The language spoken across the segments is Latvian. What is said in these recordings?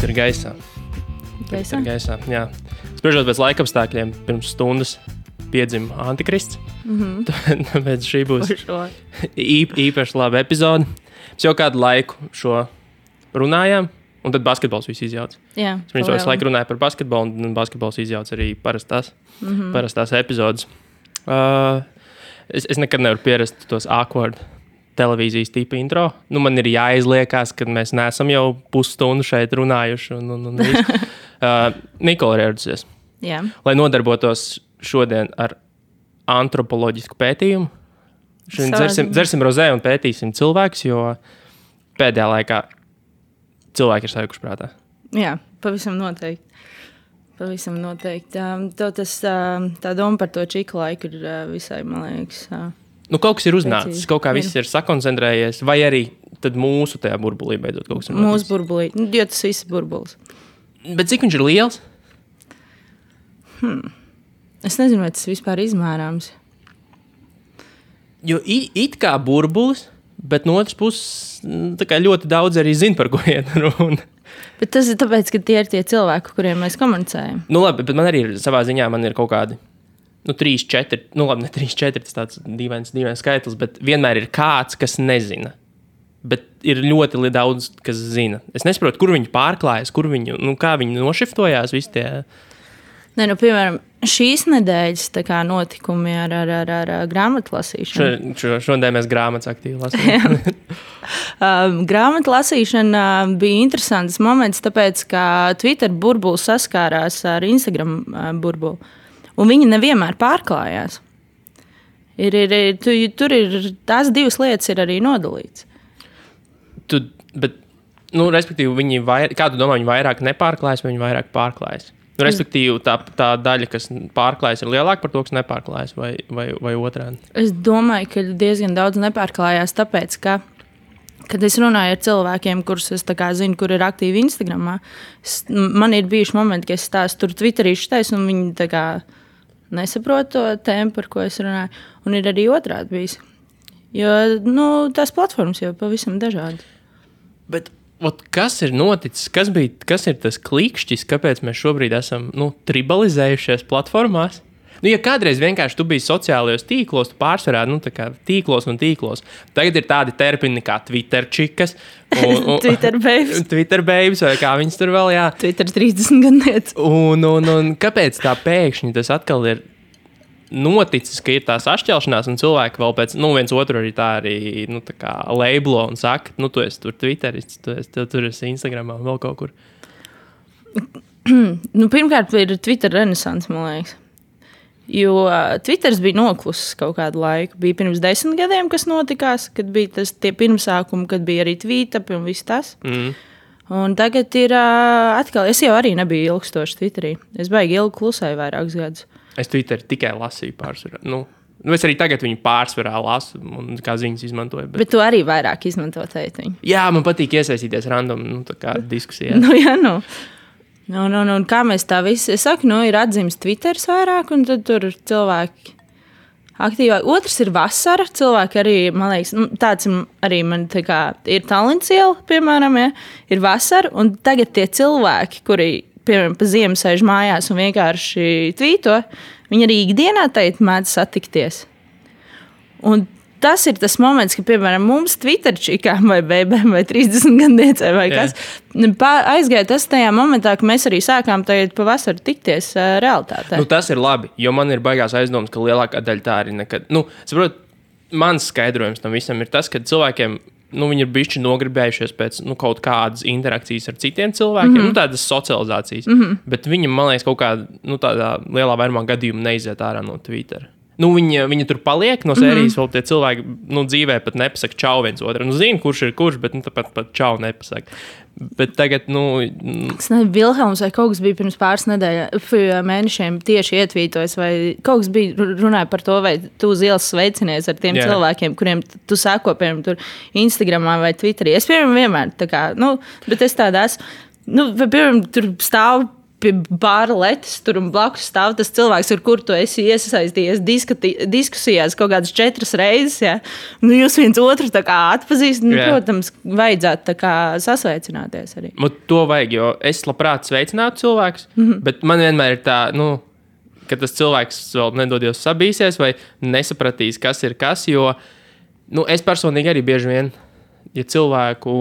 Twitter gaisā. Gaisā, jā. Spriežot pēc laikapstākļiem, pirms stundas piedzima Antikrists. Tāpēc šī būs īpaši laba epizode. Mēs jau kādu laiku šo runājām, un tad basketbols visu izjauc. Jā. Viņš visu laiku runāja par basketbolu, un basketbols izjauc arī parastās epizodes. Es nekad nevaru pierast tos awkward televīzijas tipa intro. Nu, man ir jāizliekās, kad mēs neesam jau pusstundu šeit runājuši. Nikola ir ieradusies. Jā. Lai nodarbotos šodien ar antropoloģisku pētījumu. Šodien dzersim rozē un pētīsim cilvēkus, jo pēdējā laikā cilvēki ir sajukuši prātā. Jā, pavisam noteikti. Tā doma par to čiku laiku ir visai, man liekas... Nu, kaut kas ir uznācis, kaut kā viss ir sakoncentrējies, vai arī tad mūsu tajā burbulī beidzot kaut kas ir noticis? Mūsu burbulī, jo tas viss ir burbulis. Bet cik viņš ir liels? Es nezinu, vai tas vispār izmērāms. Jo it kā burbulis, bet no otras puses tā kā ļoti daudz arī zina, par ko iet runa. Bet tas ir tāpēc, ka tie ir tie cilvēki, kuriem mēs komunicējam. Nu labi, bet man arī ir savā ziņā, man ir kaut kādi 3, 4, nu labi, ne 3, 4, tas tāds dīvains skaitlis, bet vienmēr ir kāds, kas nezina. Bet ir ļoti daudz, kas zina. Es nesaprotu, kur viņi pārklājas, kā viņi nošiftojās visi tie. Nē, nu, piemēram, šīs nedēļas notikumi ar grāmatlasīšanu. Šodien mēs grāmatas aktīvi lasījām. Grāmatlasīšana bija interesants moments, tāpēc, ka Twitter burbulis saskārās ar Instagram burbuli. Un viņi nevienmēr pārklājās. Tur ir tās divas lietas ir arī nodalīts. Respektīvi, kā tu domā, viņi vairāk nepārklājas vai viņi vairāk pārklājas? Respektīvi, tā daļa, kas pārklājas, ir lielāka par to, kas nepārklājas vai otrādi? Es domāju, ka diezgan daudz nepārklājās, tāpēc, ka, kad es runāju ar cilvēkiem, kurus es zinu, kur ir aktīvi Instagramā, man ir bijuši momenti, ka es stāstu tur Twitterīšu teisu, un viņi nesaprot to tēmu, par ko es runāju. Un ir arī otrādi bijis. Jo tās platformas jau pavisam dažādi. Bet kas ir noticis? Kas ir tas klikšķis, kāpēc mēs šobrīd esam tribalizējušies platformās? Ja kādreiz vienkārši tu biji sociālajos tīklos, tu pārsvarā tīklos un tīklos. Tagad ir tādi termini kā Twitterčikas. Twitter babes, vai kā viņas tur vēl, jā. Twitter 30 gadniec. Un kāpēc tā pēkšņi tas atkal ir noticis, ka ir tās atšķelšanās un cilvēki vēl pēc, viens otru arī tā labelo un saka, tu esi tur Twitterists, tur esi Instagramā un vēl kaut kur. Pirmkārt ir Twitter renesans, man liekas. Jo Twitters bija noklusis kaut kādu laiku. Bija pirms 10 gadiem, kas notikās, kad bija tie pirmsākumi, kad bija arī tweet-up un viss tas. Un tagad ir atkal, es jau arī nebiju ilgstoši Twitterī. Es baigi ilgi klusēju vairākus gadus. Es Twitter tikai lasīju pārsvarā. Es arī tagad viņu pārsvarā lasu un kā ziņas izmantoju. Bet tu arī vairāk izmanto tētiņu. Jā, man patīk iesaistīties random diskusijā. Kā mēs tā visi, es saku, ir atzīmes Twitteris vairāk, un tad tur cilvēki aktīvāk. Otrs ir vasara, cilvēki arī, man liekas, tāds arī man ir talents iela, piemēram, ja, ir vasara, un tagad tie cilvēki, kuri, piemēram, pa ziemu sēž mājās un vienkārši tvīto, viņi arī ikdienā mēdz satikties. Un tas ir tas moments, ka, piemēram, mums Twitterčikām vai bēbēm vai 30 gadniecei vai kas, aizgāja tas tajā momentā, ka mēs arī sākām tagad pavasaru tikties realitātē. Tas ir labi, jo man ir baigās aizdomas, ka lielākā daļa tā arī nekad. Saprot, mans skaidrojums tam visam ir tas, ka cilvēkiem, viņi ir bišķi nogribējušies pēc kaut kādas interakcijas ar citiem cilvēkiem, tādas socializācijas, bet viņam, man liekas, kaut kādā, tādā lielā vairumā gadījumā neiziet ārā no Twittera. Viņi tur paliek no sērijas, vēl tie cilvēki dzīvē pat nepasaka čau viens otru. Zinu, kurš ir kurš, bet pat čau nepasaka. Bet tagad, Es nezinu, Vilhelms vai kaut kas bija pirms pāris mēnešiem tieši ietvītojis, vai kaut kas bija runāja par to, vai tu uz ielas sveicinies ar tiem cilvēkiem, kuriem tu sako, piemēram, tur Instagramā vai Twitterī. Es, piemēram, vienmēr bet es tādā esmu, piemēram, tur stāvu pie bāra letes tur un blakus stāv tas cilvēks, ar kuru tu esi iesaistījies diskusijās kaut kādas 4 reizes. Ja? Nu, jūs viens otru tā kā atpazīstat, nu, protams, vajadzētu tā kā sasveicināties arī. To vajag, jo es labprāt sveicinātu cilvēkus, bet man vienmēr ir tā, nu, ka tas cilvēks vēl nedodies sabīsies vai nesapratīs, kas ir kas, jo nu, es personīgi arī bieži vien, ja cilvēku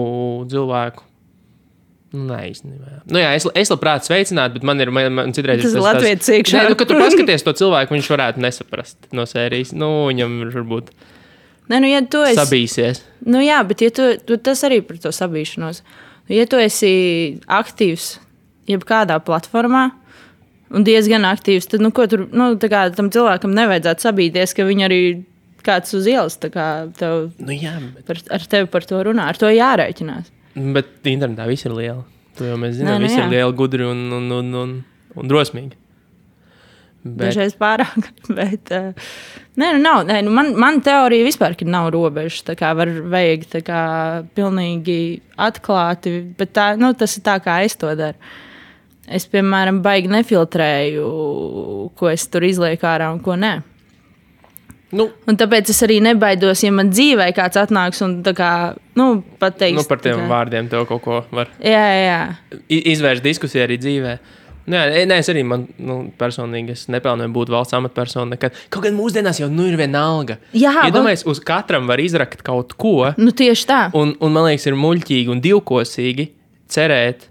nē, īstenībā. Nu jā, es labprāt sveicinātu, bet man citreiz tas ir latvietis iekšā. Nē, kad tu paskaties to cilvēku, viņš varētu nesaprast no sērijas. Nu, viņam varbūt ja tu esi sabīsies. Nu jā, bet ja tu tas arī par to sabīšanos. Ja tu esi aktīvs jebkādā platformā un diezgan aktīvs, tad ko tur, tā kā tam cilvēkam nevajadzētu sabīties, ka viņi arī kāds uz ielas tā kā tev, jā, ar tevi par to runā. Ar to jārēķinās. Bet internetā viss ir liela. To jau mēs zinām, viss ir liela, gudri un drosmīgi. Dažreiz pārāk. Bet, nav. Man teorija vispār, ka nav robežas. Tā kā vajag tā kā pilnīgi atklāti. Bet tas ir tā, kā es to daru. Es, piemēram, baigi nefiltrēju, ko es tur izlieku ārā un ko nē. Un tāpēc es arī nebaidos, ja man dzīvē kāds atnāks un tā kā, pateiks. Par tiem vārdiem tev kaut ko var izvērst diskusiju arī dzīvē. Es arī personīgi nepelnīju būt valsts amatpersona nekad. Kaut gan mūsdienās jau ir vienalga. Iedomājies, uz katram var izrakt kaut ko. Tieši tā. Un man liekas, ir muļķīgi un divkosīgi cerēt,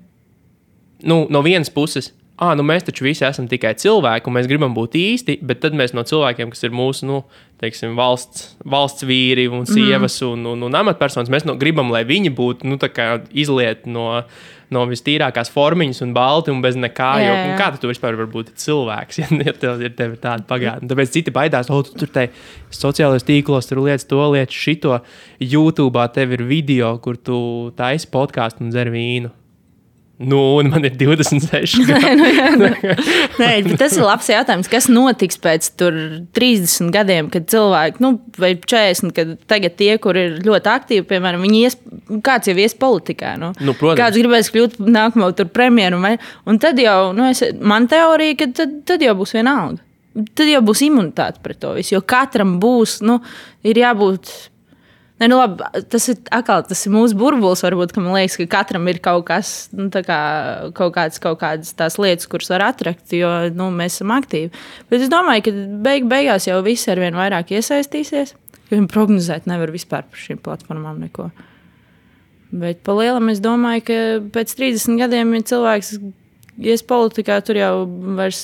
no vienas puses, mēs taču visi esam tikai cilvēki, un mēs gribam būt īsti, bet tad mēs no cilvēkiem, kas ir mūsu, teiksim, valsts vīri un sievas un amatpersonas, mēs gribam, lai viņi būtu, tā kā izliet no vistīrākās formiņas un balti un bez nekā, jo kā tu vispār var būt cilvēks, ja tev ir tāda pagātne. Tāpēc citi baidās, tu tur te sociālajos tīklos, tur lietas to, lietas šito, YouTube'ā tev ir video, kur tu taisi podcastu un dzer vīnu. Un man ir 26 gadi. Nē, tas ir labs jautājums. Kas notiks pēc 30 gadiem, kad cilvēki, vai 40, kad tagad tie, kur ir ļoti aktīvi, piemēram, kāds jau ies politikā. Kāds gribēs kļūt nākamo premjeru. Un tad jau, man teorija, ka tad jau būs vienalga. Tad jau būs imunitāte pret to visu. Jo katram būs, ir jābūt. Labi, tas ir mūsu burbulis, varbūt, ka man liekas, ka katram ir kaut kas, kaut kādas tās lietas, kuras var atrakt, jo mēs esam aktīvi. Bet es domāju, ka beigās jau visi arvien vairāk iesaistīsies, jo viņi prognozēt nevar vispār par šīm platformām neko. Bet pa lielam es domāju, ka pēc 30 gadiem, ja cilvēks ies politikā, tur jau vairs,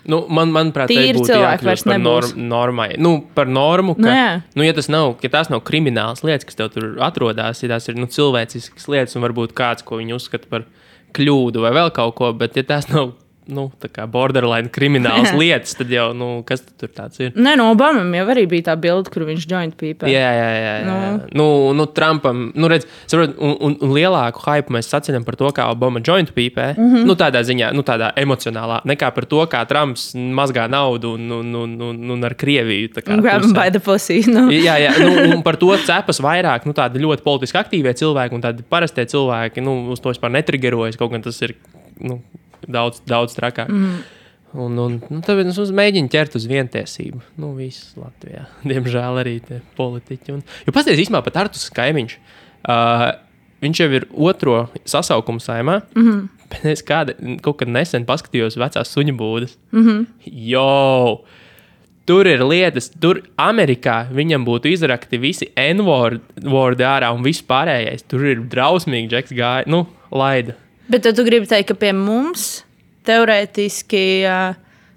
manuprāt, tā būtu jākļūst par normai. Par normu, ka, ja tās nav kriminālas lietas, kas tev tur atrodas, ja tās ir cilvēciskas lietas un varbūt kāds, ko viņi uzskata par kļūdu vai vēl kaut ko, bet ja tās nav tā kā borderline kriminālas lietas, tad jau, kas tur tāds ir? Obamam jau arī bija tā bilde, kur viņš joint pīpē. Jā. Trumpam, redz, saprot, un lielāku hype mēs saceļam par to, kā Obama joint pīpē, tādā ziņā, tādā emocionālā, nekā par to, kā Trumps mazgā naudu un ar Krieviju. Grab him by the pussy. Jā, un par to cepas vairāk, tādi ļoti politiski aktīvie cilvēki un tādi parastie cilvēki, uz to vispār netrigerojas, kaut gan tas ir, daudz trakāk. Tāpēc es mēģinu ķert uz vientiesību. Viss Latvijā. Diemžēl arī tie politiķi. Jo pasties īstenībā pat Artus Kaimiņš. Viņš jau ir 2. sasaukumu saimā. Bet es kaut kad nesen paskatījos vecās suņu būdas. Tur ir lietas, tur Amerikā viņam būtu izrakti visi N-wordi ārā un viss pārējais. Tur ir drausmīgi, Džeks gāja, laida. Bet tu gribi teikt, ka pie mums teorētiski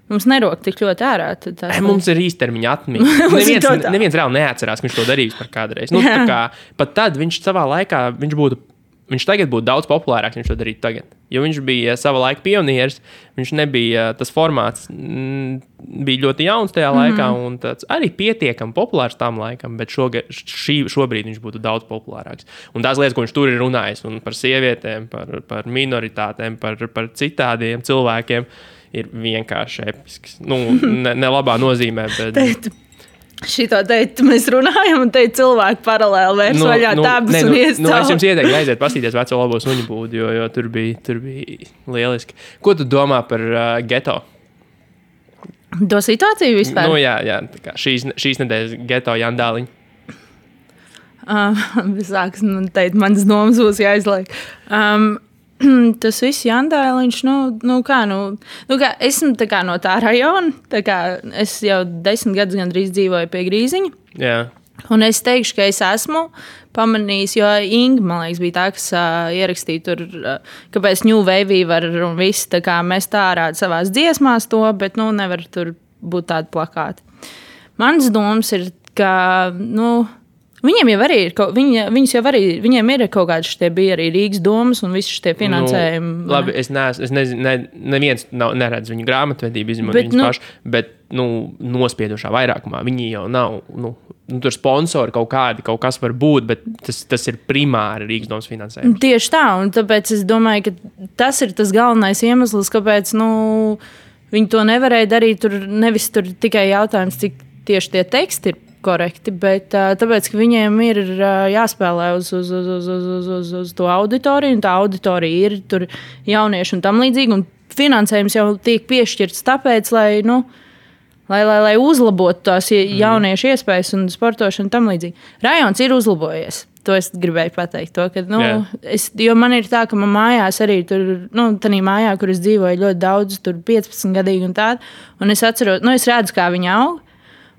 mums nerok tik ļoti ārā. Mums ir īstermiņa atmiņa. Neviens reāli neatcerās, ka viņš to darījis par kādreiz. Pat tad viņš savā laikā, viņš tagad būtu daudz populārāks, viņš to darītu tagad. Jo viņš bija sava laika pionieris, viņš nebija, tas formāts bija ļoti jauns tajā laikā un tāds arī pietiekami populārs tam laikam, bet šobrīd viņš būtu daudz populārāks. Un tās lietas, ko viņš tur ir runājis, un par sievietēm, par minoritātēm, par citādiem cilvēkiem, ir vienkārši episks. Ne labā nozīmē, bet... Šito teikt, mēs runājam, un te cilvēki paralēli vērs vaļā dabas un ies cauri. Es jums ieteiktu aiziet pastīties veco labo suņu būdu, jo tur bija lieliski. Ko tu domā par geto? To situāciju vispār? Jā, tā kā šīs nedēļas geto jandāliņi. Sāks, teikt, manas domas būs jāizliek. Tas viss jandāliņš, kā esmu tā kā no tā rajona, tā kā es jau 10 gadus gandrīz dzīvoju pie Grīziņa. Jā. Un es teikšu, ka es esmu pamanījis, jo Inga, man liekas, bija tā, kas ierakstīja tur, kāpēc New Wave var un viss, tā kā mēs tā ārādi savās dziesmās to, bet, nevar tur būt tādi plakāti. Mans domas ir, ka, viņiem jau arī ir, viņiem ir kaut kāds šitie bija arī Rīgas domas un visi šitie finansējumi. Labi, es nezinu, neviens neredz viņu grāmatvedību, izņemot viņus paši, bet, nospiedušā vairākumā. Viņi jau nav, tur sponsori kaut kas var būt, bet tas ir primāri Rīgas domas finansējums. Tieši tā, un tāpēc es domāju, ka tas ir tas galvenais iemesls, kāpēc, viņi to nevarēja darīt, nevis tur tikai jautājums, cik tieši tie teksti ir korekti, bet tāpēc, ka viņiem ir jāspēlē uz to auditoriju, un tā auditorija ir tur jaunieši un tam līdzīgi, un finansējums jau tiek piešķirts tāpēc, lai uzlabotu tās jauniešu iespējas un sportošanu tam līdzīgi. Rajons ir uzlabojies. To es gribēju pateikt. To, ka, jo man ir tā, ka man mājās arī tur, tādā mājā, kur es dzīvoju ļoti daudz, tur 15 gadīgi un tādu, un es atceros, es redzu, kā viņi aug.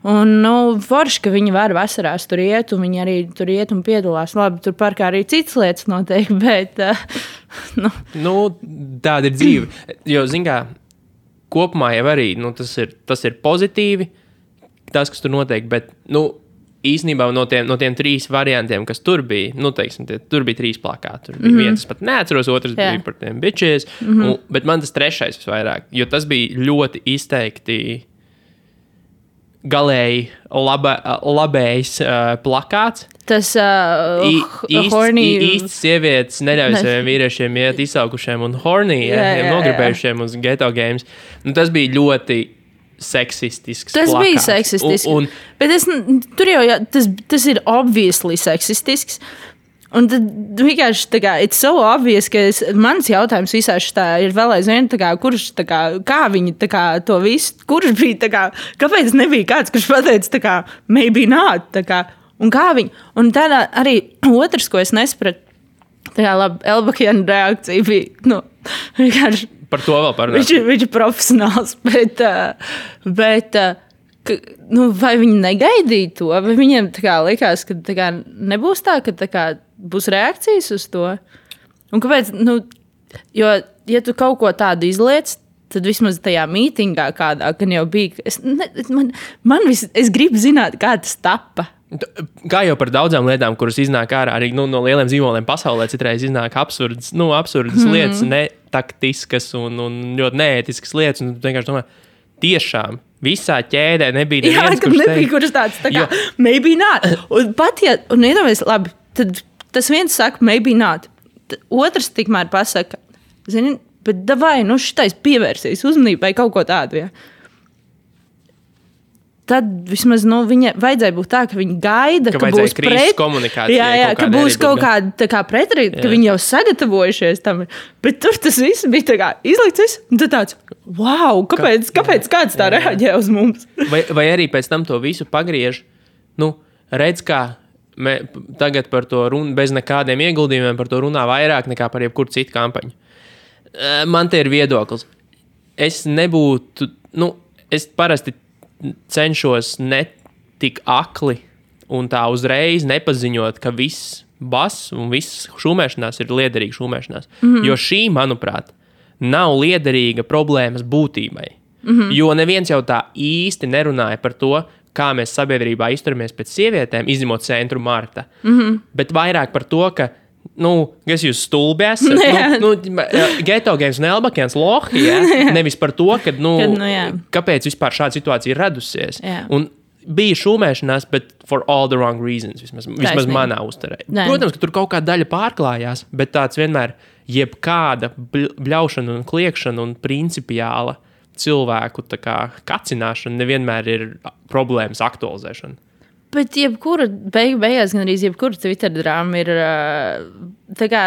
Un, forši, ka viņi var vasarās tur iet, un viņi arī tur iet un piedalās. Labi, tur parkā arī citas lietas notiek, bet, tāda ir dzīve. Jo, zin kā, kopumā jau arī, tas ir pozitīvi, tas, kas tur notiek, bet, īstenībā no tiem 3 variantiem, kas tur bija, teiksim, tur bija 3 plakāti. Tur bija viens, pat neatceros, otrs bija par tiem bitches, bet man tas 3. visvairāk, jo tas bija ļoti izteikti galēji labējs plakāts. Tas īsts sievietes neļauj saviem vīriešiem iet izsaukušiem un nogribējušiem uz Ghetto Games. Tas bija ļoti seksistisks tas plakāts. Bija seksistisks. Bet tur jau tas ir obviously seksistisks. Un tad vienkārši tā kā it's so obvious, ka mans jautājums visā šitā ir vēl aizvien, kurš, kā viņi to visu, kurš bija, kāpēc nebija kāds, kurš pateica, maybe not, un kā viņi, un tādā arī otrs, ko es nesapratu, labi, Elbakjana reakcija bija, vienkārši. Par to vēl parunāt. Viņš ir profesionāls, bet vai viņi negaidīja to, vai viņiem likās, ka nebūs tā, ka būs reakcijas uz to. Un kāpēc? Jo, ja tu kaut ko tādu izliec, tad vismaz tajā mītingā kādā, kad jau bija, es gribu zināt, kā tas tapa. Kā jau par daudzām lietām, kuras iznāk ārā, arī no lieliem zīmoliem pasaulē citreiz iznāk absurdas lietas, netaktiskas un ļoti neētiskas lietas, un tu vienkārši domā, tiešām, visā ķēdē nebija neviens, kurš tāds, maybe not. Un pat, un iedomājies, labi, tad tas viens saka, maybe not. Otrs tikmēr pasaka, zini, bet davai, šitais pievērsīs uzmanībai kaut ko tādu, ja. Tad vismaz viņa vajadzēja būt tā, ka viņi gaida, ka būs komunikācija. Jā, ka būs kaut kāda pretrība, ka viņi jau sagatavojušies tam. Bet tur tas viss bija izlikts, un tad tāds, wow, kāpēc kāds tā reaģē uz mums? Vai arī pēc tam to visu pagriež, redz, kā tagad par to runu, bez nekādiem ieguldījumiem par to runā vairāk nekā par jebkuru citu kampaņu. Man te ir viedoklis. Es nebūtu, es parasti cenšos netik akli un tā uzreiz nepaziņot, ka viss bass un viss šūmēšanās ir liederīga šūmēšanās. Jo šī, manuprāt, nav liederīga problēmas būtībai. Jo neviens jau tā īsti nerunāja par to, kā mēs sabiedrībā izturamies pēc sievietēm, izņemot centru Marta. Bet vairāk par to, ka kas jūs stulbi esat? Ghetto Games un Elbakjans lohi, nevis par to, ka, kāpēc vispār šāda situācija ir radusies. Un bija šūmēšanās, bet for all the wrong reasons, vismaz manā uzturē. Protams, ka tur kaut kāda daļa pārklājās, bet tāds vienmēr jebkāda bļaušana un kliekšana un principiāla cilvēku tā kā kacināšana nevienmēr ir problēmas aktualizēšana. Bet jebkura beigās, gan arī jebkura Twitter drāma ir tā kā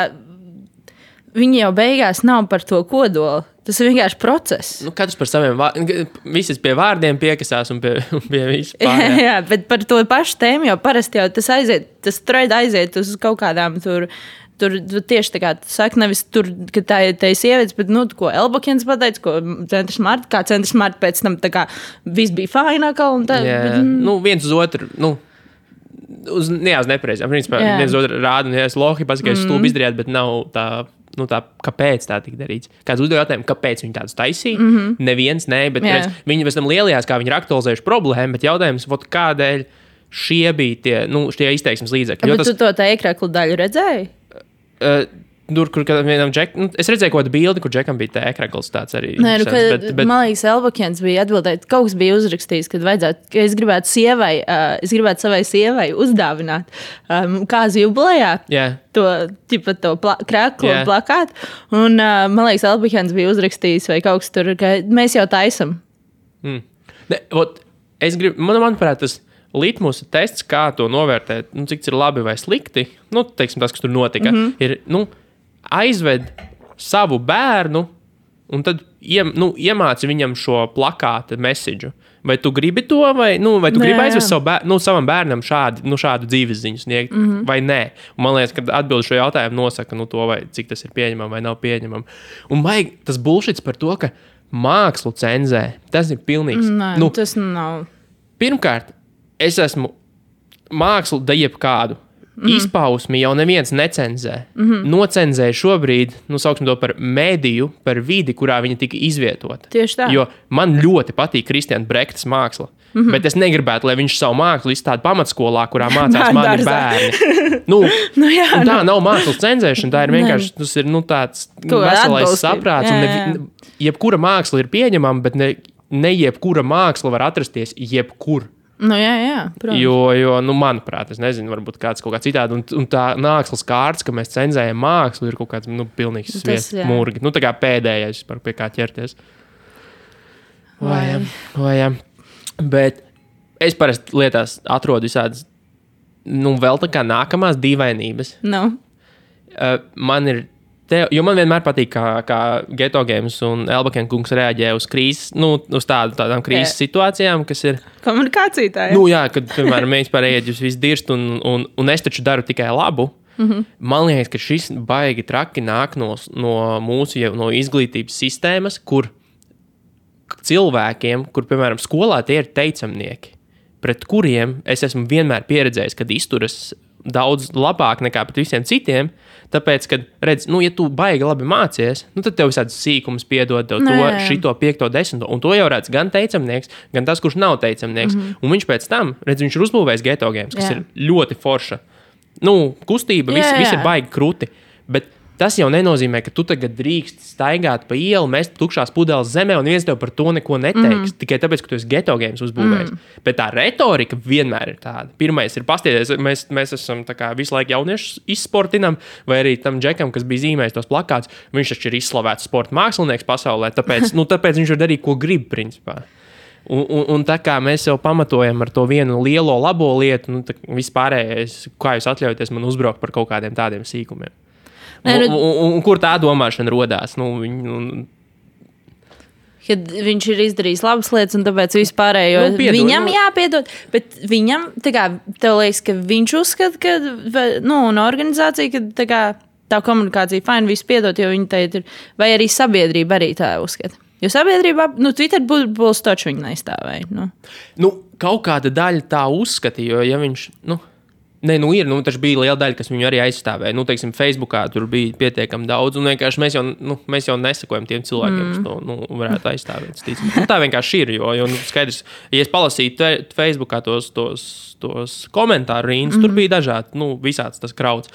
viņi jau beigās nav par to kodolu. Tas ir vienkārši process. Nu, katrs par saviem vārdiem. Visi pie vārdiem piekasās un pie vispār. Jā, bet par to pašu tēmu jau parasti jau tas thread aiziet uz kaut kādām tur tieši tā kā tu saki, nevis tur, ka tā ir sievietes, bet, ko Elbakens pateica, ko Centrs Marta, kā Centrs Marta pēc tam tā kā viss bija fainākā un tā. Jā, bet, viens uz otru, uz nepareizām. Principā, viens uz otru rāda, un es lohi pasaka, es stulbi izdarījāt, bet nav tā, kāpēc tā tika darīts. Kāds uzdeva jautājumu, kāpēc viņi tādus taisīja? Neviens, bet viņi pēc tam lielajās, kā viņi ir aktualizējuši problēmu, bet jautājums, kādēļ šie bija tie izteiksmes līdzekļi. Bet tu to tā ekraklu daļu redzēji? Tur, kur vienam džekam, es redzēju kaut kādu bildi, kur džekam bija tā ekrakls tāds arī. Nē, bet man liekas, Elbakens bija atbildējis, kaut kas bija uzrakstījis, ka es gribētu savai sievai uzdāvināt kāzu jubilejā. Yeah. To kraklu un plakātu. Un man liekas, Elbakens bija uzrakstījis vai kaut kas tur, ka mēs jau taisam. Manuprāt, tas litmusa tests, kā to novērtēt, cik tas ir labi vai slikti, teiksim, tas, kas tur notika, ir aizved savu bērnu un tad iemāci viņam šo plakāta mesiģu. Vai tu gribi to, vai tu gribi aizvest savam bērnam šādu dzīves ziņu sniegt, vai nē? Un man liekas, ka atbildi šo jautājumu nosaka to, vai cik tas ir pieņemam vai nav pieņemam. Un vajag tas bullshits par to, ka mākslu cenzē, tas ir pilnīgs. Nē, tas nav. Pirmkārt, es esmu mākslu da jebkādu. Izpausmi jau neviens necenzē. Nocenzēja šobrīd, sauksim to par mēdīju, par vidi, kurā viņa tika izvietota. Tieši tā. Jo man ļoti patīk Kristiāna Brektas māksla. Bet es negribētu, lai viņš savu mākslu izstāda pamatskolā, kurā mācās mani bērni. Tā nav mākslas cenzēšana, tā ir vienkārši tas ir tāds veselais saprāts. Jebkura māksla ir pieņemama, bet ne jebkura māksla var atrasties jebkur. Jā, protams. Jo manuprāt, es nezinu, varbūt kāds kaut kā citādi. Un tā mākslas kārts, ka mēs cenzējam mākslu, ir kaut kāds pilnīgs sviests murgi. Tā kā pēdējais, pie kā ķerties. Vai. Bet es parasti lietās atrodu visādas, vēl tā kā nākamās dīvainības. Man ir jo man vienmēr patīk, kā Geto Games un Elbaken kungs reaģē uz krīzes, uz tādām krīzes situācijām, kas ir komunikācija tā, jā. Jā, kad, piemēram, mēs pārējāt jūs visu dirst un es taču daru tikai labu. Man liekas, ka šis baigi traki nāk no mūsu no izglītības sistēmas, kur cilvēkiem, kur, piemēram, skolā tie ir teicamnieki, pret kuriem es esmu vienmēr pieredzējis, kad izturas daudz labāk nekā pret visiem citiem, tāpēc, kad redz, ja tu baigi labi mācies, tad tev visādas sīkumus piedod, tev šito 5, 10, un to jau redz gan teicamnieks, gan tas, kurš nav teicamnieks. Un viņš pēc tam, redz, viņš ir uzbūvējis Geto Games, kas ir ļoti forša. Kustība, viss ir baigi kruti, bet tas jau nenozīmē, ka tu tagad drīkst staigāt pa ielu, mest tukšās pudeles zemē, un viens tev par to neko neteiks, tikai tāpēc, ka tu esi Geto Games uzbūvējis. Bet tā retorika vienmēr ir tāda. Pirmais ir pasties, mēs esam tā kā visu laiku jauniešus izsportinam, vai arī tam džekam, kas bija zīmējis tos plakātus, viņš taču ir izslavēts sporta mākslinieks pasaulē, tāpēc viņš var darīt, ko grib, principā. Un tā kā mēs jau pamatojam ar to vienu lielo labo lietu, vispārējais, kā jūs atļaujaties man uzbraukt par kaut kādiem tādiem sīkumiem. Un kur tā domāšana rodās? Kad viņš ir izdarījis labas lietas, un tāpēc vispārējo viņam jāpiedod. Bet viņam, tev liekas, ka viņš uzskata, ka un organizācija, ka tā komunikācija fajn visu piedot, jo viņi teikt ir, vai arī sabiedrība arī tā uzskata. Jo sabiedrībā, Twitter būs taču viņa neizstāvēja. Kaut kāda daļa tā uzskata, jo ja viņš, taču bija liela daļa, kas viņu arī aizstāvēja. Teiksim, Facebookā tur bija pietiekami daudz, un vienkārši mēs jau nesakojam tiem cilvēkiem, kas to varētu aizstāvēt. Tā vienkārši ir, jo skaidrs, ja es palasītu Facebookā tos komentāru rīnas, tur bija dažādi, visāds tas krauts.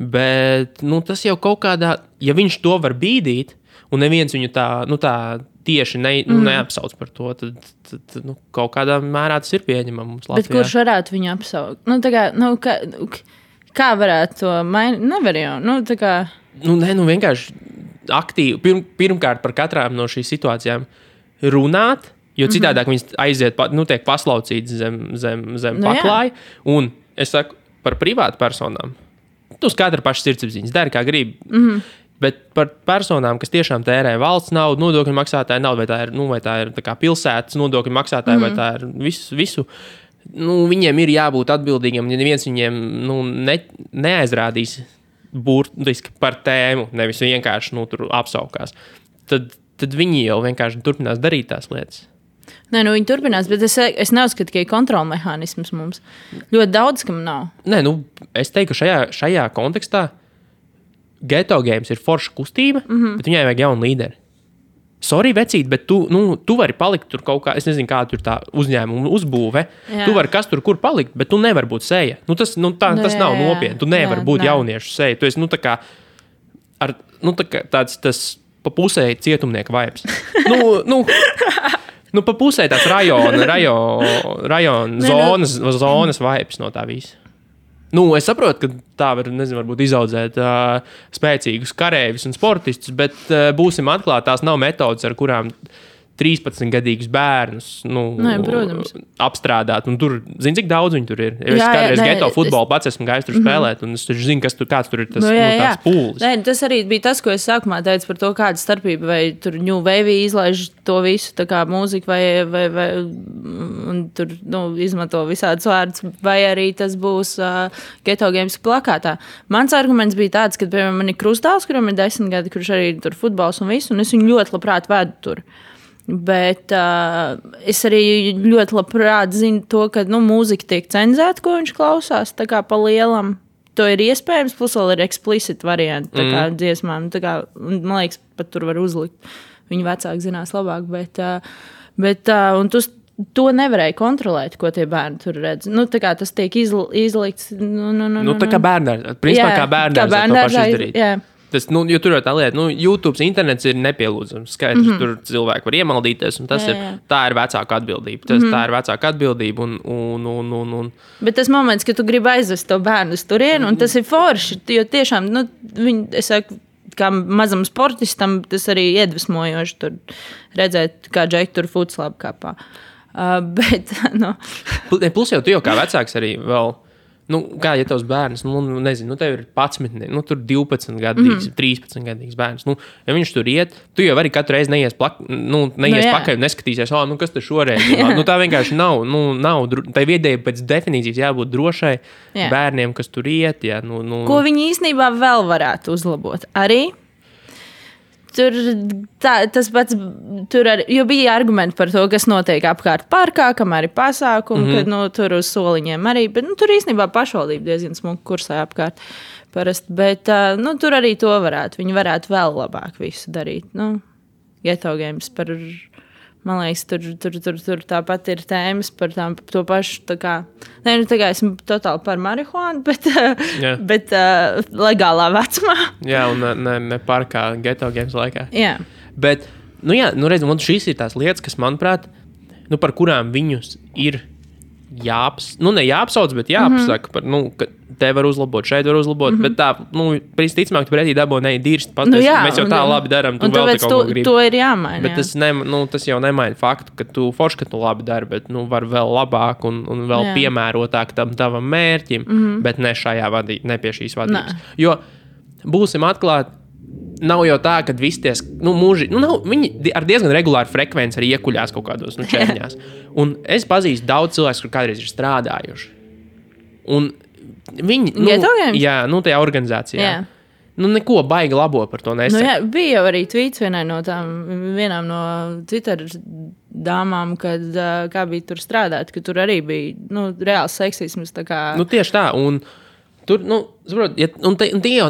Bet, tas jau kaut kādā, ja viņš to var bīdīt, un neviens viņu tā tieši neapsauc par to, tad kaut kādā mērā tas ir pieņemams Latvijā. Bet kurš varētu viņu apsaukt? Kā varētu to mainīt? Nevar jau. Vienkārši aktīvi. Pirmkārt par katrām no šīs situācijām runāt, jo citādāk viņas aiziet, tiek paslaucītas zem paklāja. Un es saku par privātu personām. Tu uz katra paša sirdsapziņas dari, kā gribi. Bet par personām, kas tiešām tērē valsts naudu, nodokļu maksātāju naudu, vai tā ir tā kā pilsētas nodokļu maksātāju, vai tā ir visu. Viņiem ir jābūt atbildīgiem, ja neviens viņiem neaizrādīs burtiski par tēmu, nevis vienkārši tur apsaukās. Tad viņi jau vienkārši turpinās darīt tās lietas. Nē, viņi turpinās, bet es neuzskatu, ka ir kontrolmehānisms mums. Ļoti daudz, kam nav. Nē, es teiktu, ka šajā kontekstā Ghetto Games ir forša kustība, bet viņai vajag jaunu līderi. Sorry, vecīt, bet tu vari palikt tur kaut kā, es nezinu, kā tur tā uzņēmuma uzbūve. Jā. Tu vari kas tur kur palikt, bet tu nevari būt seja. Tas nav nopietni. Tu nevari būt jauniešu seja. Tu esi, tāds pa pusē cietumnieka vibes. Pa pusē tāds rajona zonas vibes no tā visa. Es saprotu, ka tā var, varbūt izaudzēt spēcīgus karēvis un sportistus, bet būsim atklāti, tās nav metodas, ar kurām 13-gadīgus bērnus apstrādāt. Un tur, zini, cik daudz viņi tur ir. Es kādreiz geto futbolu pats esmu gājis tur spēlēt, un es zinu, kāds tur ir tās pūlis. Nē, tas arī bija tas, ko es sākumā teicu par to, kāda starpība, vai tur New Wave izlaiž to visu, tā kā mūzika, vai un tur, izmanto visādus vārdus, vai arī tas būs Ghetto Games plakātā. Mans arguments bija tāds, ka, piemēram, man ir krustāls, kuram ir 10 gadi, kurš arī tur futbols un visu, un es viņu ļoti labprāt vedu tur. Bet es arī ļoti labprāt zinu to, ka mūzika tiek cenzēta, ko viņš klausās, tā kā pa lielam. To ir iespējams, plus vēl ir explicit varianti, tā kā dziesmām. Tā kā, man liekas, pat tur var uzlikt. Viņi vecāki zinās labāk, bet un to nevarēja kontrolēt, ko tie bērni tur redz. Tā kā tas tiek izlikts. Tā kā bērnārs. Principā kā bērnārs to paši izdarīt. Jā. Tas, jo tur jau tā lieta, YouTube, internets ir nepielūdzams. Skaidrs, tur cilvēki var iemaldīties, un tā ir vecāka atbildība. Tā ir vecāka atbildība. Un. Bet tas moments, kad tu gribi aizvest to bērnu uz turienu, un tas ir forši, jo tiešām, es saku, kā mazam sportistam, tas arī iedvesmojoši tur redzēt, kā Džeki tur futslabu kāpā. Plus jau tu kā vecāks arī vēl. Kā ja tavs bērns, nezinu, tev ir 11, tur 12 gadīgs, 13 gadīgs bērns. Ja viņš tur iet, tu jau arī katru reizi neies pakaļ un neskatīsies, kas te šoreiz ir. Tā vienkārši nav. Tai viedēji pēc definīcijas jābūt drošai bērniem, kas tur iet. Jā, Ko viņi īstenībā vēl varētu uzlabot? Arī tas pats, jo bija argumenti par to, kas notiek apkārt parkā, kamēr ir pasākumi, kad tur uz soliņiem arī, bet tur īstenībā pašvaldība diezgan smuki kursē apkārt parasti, bet tur arī to varētu, viņi varētu vēl labāk visu darīt. Ghetto Games par, man liekas, tur tāpat ir tēmas par to pašu, tā kā esmu totāli par marihuānu, bet legālā vecumā. Jā, un ne parkā Ghetto Games laikā. Jā. Bet, redz, šīs ir tās lietas, kas, manuprāt, par kurām viņus ir jāapsauc, bet jāapsaka par, ka te var uzlabot, šeit var uzlabot, bet tā, ticamāk, tu pretī dabū dirst pateikt, mēs jau tā labi daram, tu vēl te kaut ko gribi. To ir jāmaina. Bet tas jau nemaina faktu, ka tu forši, ka tu labi dari, bet var vēl labāk un vēl piemērotāk tam tavam mērķim, bet ne šajā ne pie šīs vadības. Jo būsim atklāti, nav jau tā, ka visi ties, viņi ar diezgan regulāru frekvenci arī iekuļās kaut kādos čerņās. Un es pazīstu daudz cilvēku, kur kādreiz ir strādājuši. Un viņi, tajā organizācijā. Jā. Neko baigi labo par to nesaka. Bija jau arī tweets vienām no Twitter dāmām, kad kā bija tur strādāt, ka tur arī bija reāls seksisms. Tieši tā, un tur, saprot, tie jau,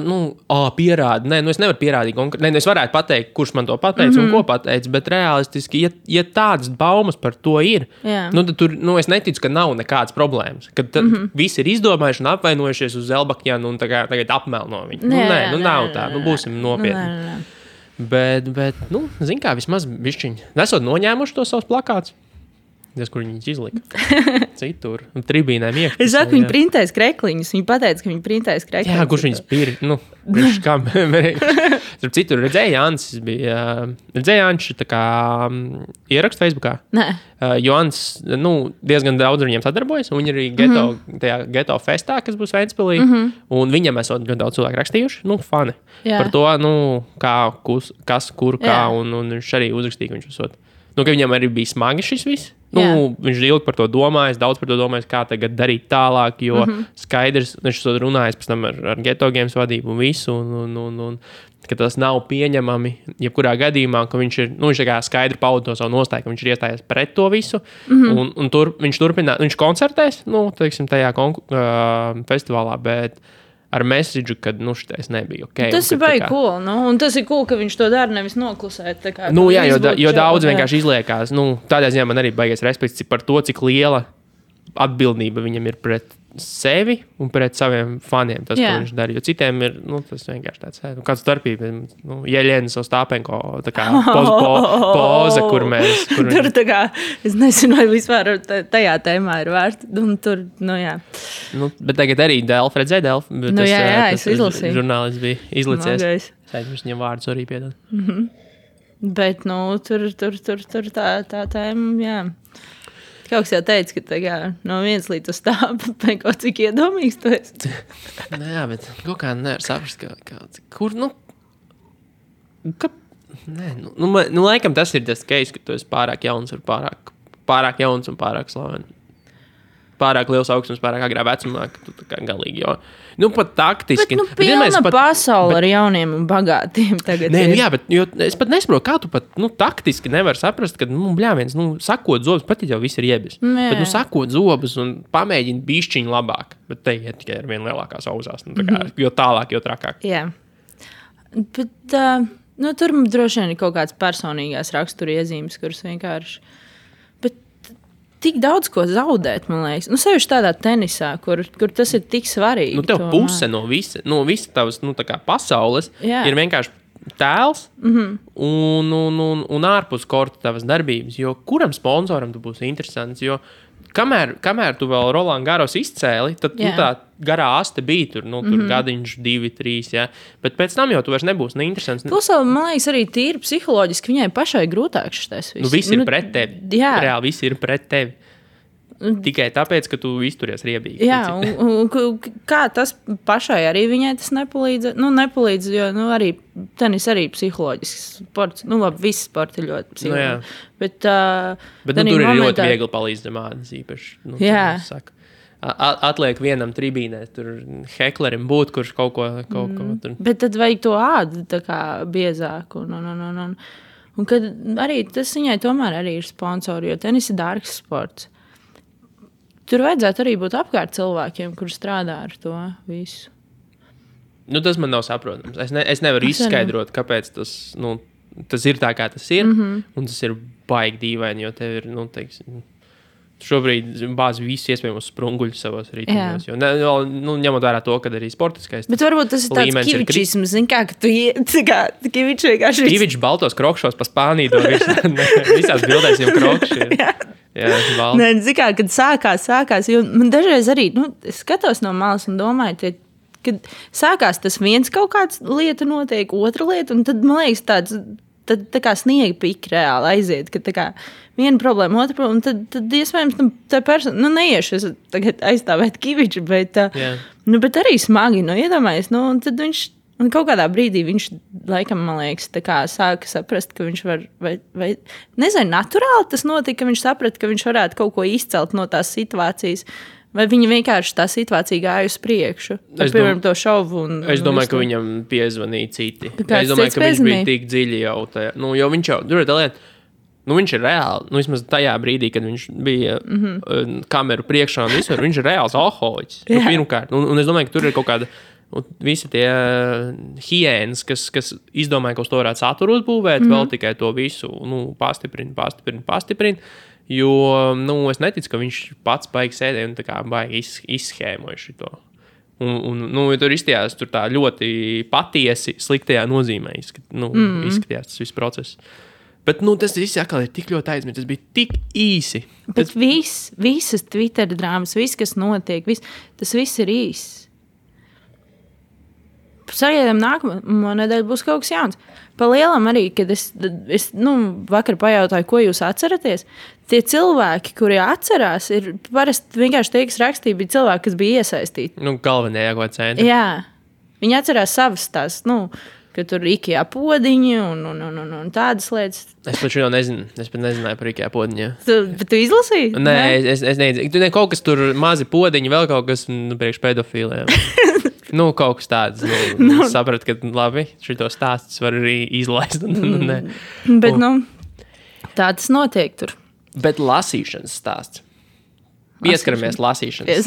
pierāda. Nē, es nevaru pierādīt konkrēti. Es varētu pateikt, kurš man to pateica un ko pateica, bet realistiski, ja tādas baumas par to ir, tad tur, es neticu, ka nav nekādas problēmas. Kad visi ir izdomājuši un apvainojušies uz Zelbakjanu un tagad apmelno viņu. Nav tā. Būsim nopietni. Bet, zin kā, vismaz bišķiņi. Nesot noņēmuši to savus plakātus. Tas, kur viņas izlika. Citur. Tribīnēm iekšpusē. Es saku, viņi printēs krekliņus. Viņi pateica, ka viņi printēs krekliņus. Jā, kurš viņas pīri, kam. Starp citur, redzēja Jānis bija, tā kā ierakst Facebookā. Nē. Jānis, diezgan daudz ar viņiem sadarbojas, un viņi arī tajā geto festā, kas būs Ventspilī, un viņam esot ļoti daudz cilvēku rakstījuši, fani. Jā. Par to, kas, kur, kā, un viņš arī uzrakstīja, ka viņš esot. Ka viņam arī bija smagi šis viss. Viņš ilgi par to domājis, daudz par to domājis, kā tagad darīt tālāk, jo skaidrs, viņš to runājis pēc tam ar Geto Games vadību un visu, un ka tas nav pieņemami, jebkurā gadījumā, ka viņš ir, viņš tā kā skaidri pauda to savu nostāju, ka viņš ir iestājies pret to visu, un viņš turpinās, viņš koncertēs, teiksim, tajā festivālā, bet ar message, ka šitais nebija ok. Tas ir baigi cool, un tas ir cool, ka viņš to dara nevis noklusēt. Jā, jo daudz vienkārši izliekās. Tādā ziņā man arī baigais respekts par to, cik liela atbildība viņam ir pret sevi un pret saviem faniem. Tas, ko viņš dara. Jo citiem ir, tas vienkārši tāds, kāds starpība. Jeļenis Ostāpenko, tā kā poza, kur mēs... Tur tā kā, es nezinu, vai vispār tajā tēmā ir vērts. Un tur, jā. Bet tagad arī Delf, redzēja Delf? Jā, es izlasīju. Žurnālists bija izlicies. Viņš viņam vārdus arī piedod. Bet, tur tā tēma, jā. Kaut kas jau teica, ka no 1 līdz uz tāpu, cik iedomīgs tu esi. Jā, bet kaut kā nevar saprast, kur, laikam tas ir tas case, ka tu esi pārāk jauns un pārāk slavens. Pārāk liels augstums, pārāk agrā vecumā, ka tu tā kā galīgi, jo, pat taktiski. Bet, pilna pasaule ar jauniem un bagātiem tagad ir. Jā, bet es pat nesaprotu, kā tu pat, taktiski nevar saprast, ka, bļāviens, sakot zobus, pat jau viss ir iebis. Bet, sakot zobus un pamēģini bišķiņu labāk, bet te iet tikai ar vien lielākās auzās, jo tālāk, jo trakāk. Jā. Bet, tur droši vien ir kaut kāds personīgās rakstura iezīmes, kuras vienkārši... Tik daudz ko zaudēt, man liekas. Sevišķi tādā tenisā, kur tas ir tik svarīgi. Tev puse no visa tavas, tā kā pasaules ir vienkārši tēls un ārpus korta tavas darbības. Jo kuram sponsoram tu būsi interesants? Jo kamēr tu vēl Roland Garros izcēli, tad tā garā aste bija tur, tur gadiņš 2, 3, jā. Bet pēc tam jau tu vairs nebūsi neinteresants. Plus, man liekas, arī tīri psiholoģiski viņai pašai grūtāk šitais viss. Viss ir pret tevi. Jā. Reāli viss ir pret tevi. Tikai tāpēc, ka tu izturies riebīgi. Jā, un kā tas pašai arī viņai tas nepalīdz? Nepalīdz, jo arī tenis arī psiholoģisks sports. Labi, visi sporti ir ļoti psiholoģiski. Bet tur ir ļoti viegli palīdzamādas īpaši. Jā. Atliek vienam tribīnē, tur heklerim būt, kurš kaut ko tur. Bet tad vajag to ādu tā kā biezāku. Un kad arī tas viņai tomēr arī ir sponsori, jo tenis ir dārgs sports. Tur vajadzētu arī būt apkārt cilvēkiem, kur strādā ar to visu. Tas man nav saprotams. Es nevaru izskaidrot, kāpēc tas ir tā, kā tas ir. Un tas ir baigi dīvaini, jo tev ir, teiksim, šobrīd bāzi visu iespējamos sprunguļus savos rītumos. Ņemot vērā to, ka arī sportiskais. Bet varbūt tas ir tāds kivičisms, ka tu kivičs vienkārši... Kivičs baltos krokšos pa Spāniju, visās bildēs jau krokši ir. Jā, kad sākās, jo man dažreiz arī, es skatos no malas un domāju, kad sākās tas viens kaut kāds lieta notiek, otra lieta, un tad, man liekas, tad tā kā sniega pika reāli aiziet, ka tā kā viena problēma, otra problēma, un tad iespējams, tā persona, neiešu es tagad aizstāvēt Kiviču, bet arī smagi, iedomājies, un tad viņš, un kaut kādā brīdī viņš, laikam, man liekas, tā kā sāka saprast, ka viņš var, vai nezinu, naturāli tas notika, ka viņš saprata, ka viņš varētu kaut ko izcelt no tās situācijas, vai viņa vienkārši tā situācija gāja uz priekšu, piemēram, to šovu. Es domāju, ka viņam piezvanīja citi. Es domāju, ka viņš bija tik dziļi jau tajā. Jo viņš jau, tur ir tā lieta, viņš ir reāli, vismaz tajā brīdī, kad viņš bija kameru priekšā un visur, viņš ir reāls alkoholiķis. Pirmkārt, un es domāju, ka tur ir kaut kāda visi tie hiēnas, kas izdomāja, ka uz to varētu saturu uzbūvēt, vēl tikai to visu pastiprina. Jo, es neticu, ka viņš pats baigi sēdēja un tā kā baigi izschēmoja šito. Tur izstījās tur tā ļoti patiesi sliktajā nozīmē. Izskatījās tas viss process. Bet tas viss atkal ir tik ļoti aizmirsts. Tas bija tik īsi. Bet visas Twitter drāmas, viss, kas notiek, tas viss ir īss. Sagaidām nākamā nedēļa būs kaut kas jauns. Pa lielam arī, kad es vakar pajautāju, ko jūs atceraties, tie cilvēki, kuri atcerās, ir parasti vienkārši tie, kas rakstīja, bija cilvēki, kas bija iesaistīti. Galvenie ko centri. Jā, viņi atcerās savas tās, ka tur ir IKEA podiņi un tādas lietas. Es pat šo nezinu. Es pat nezināju par IKEA podiņu. Bet tu izlasīji? Nē, es nezinu. Tur kaut kas tur mazi podiņi, vēl kaut kas priekš pedofīliem. Kaut kas tāds. Sapratu, ka labi, šito stāstus var arī izlaist. Bet, tā tas notiek tur. Bet lasīšanas stāsts. Pieskaramies lasīšanas.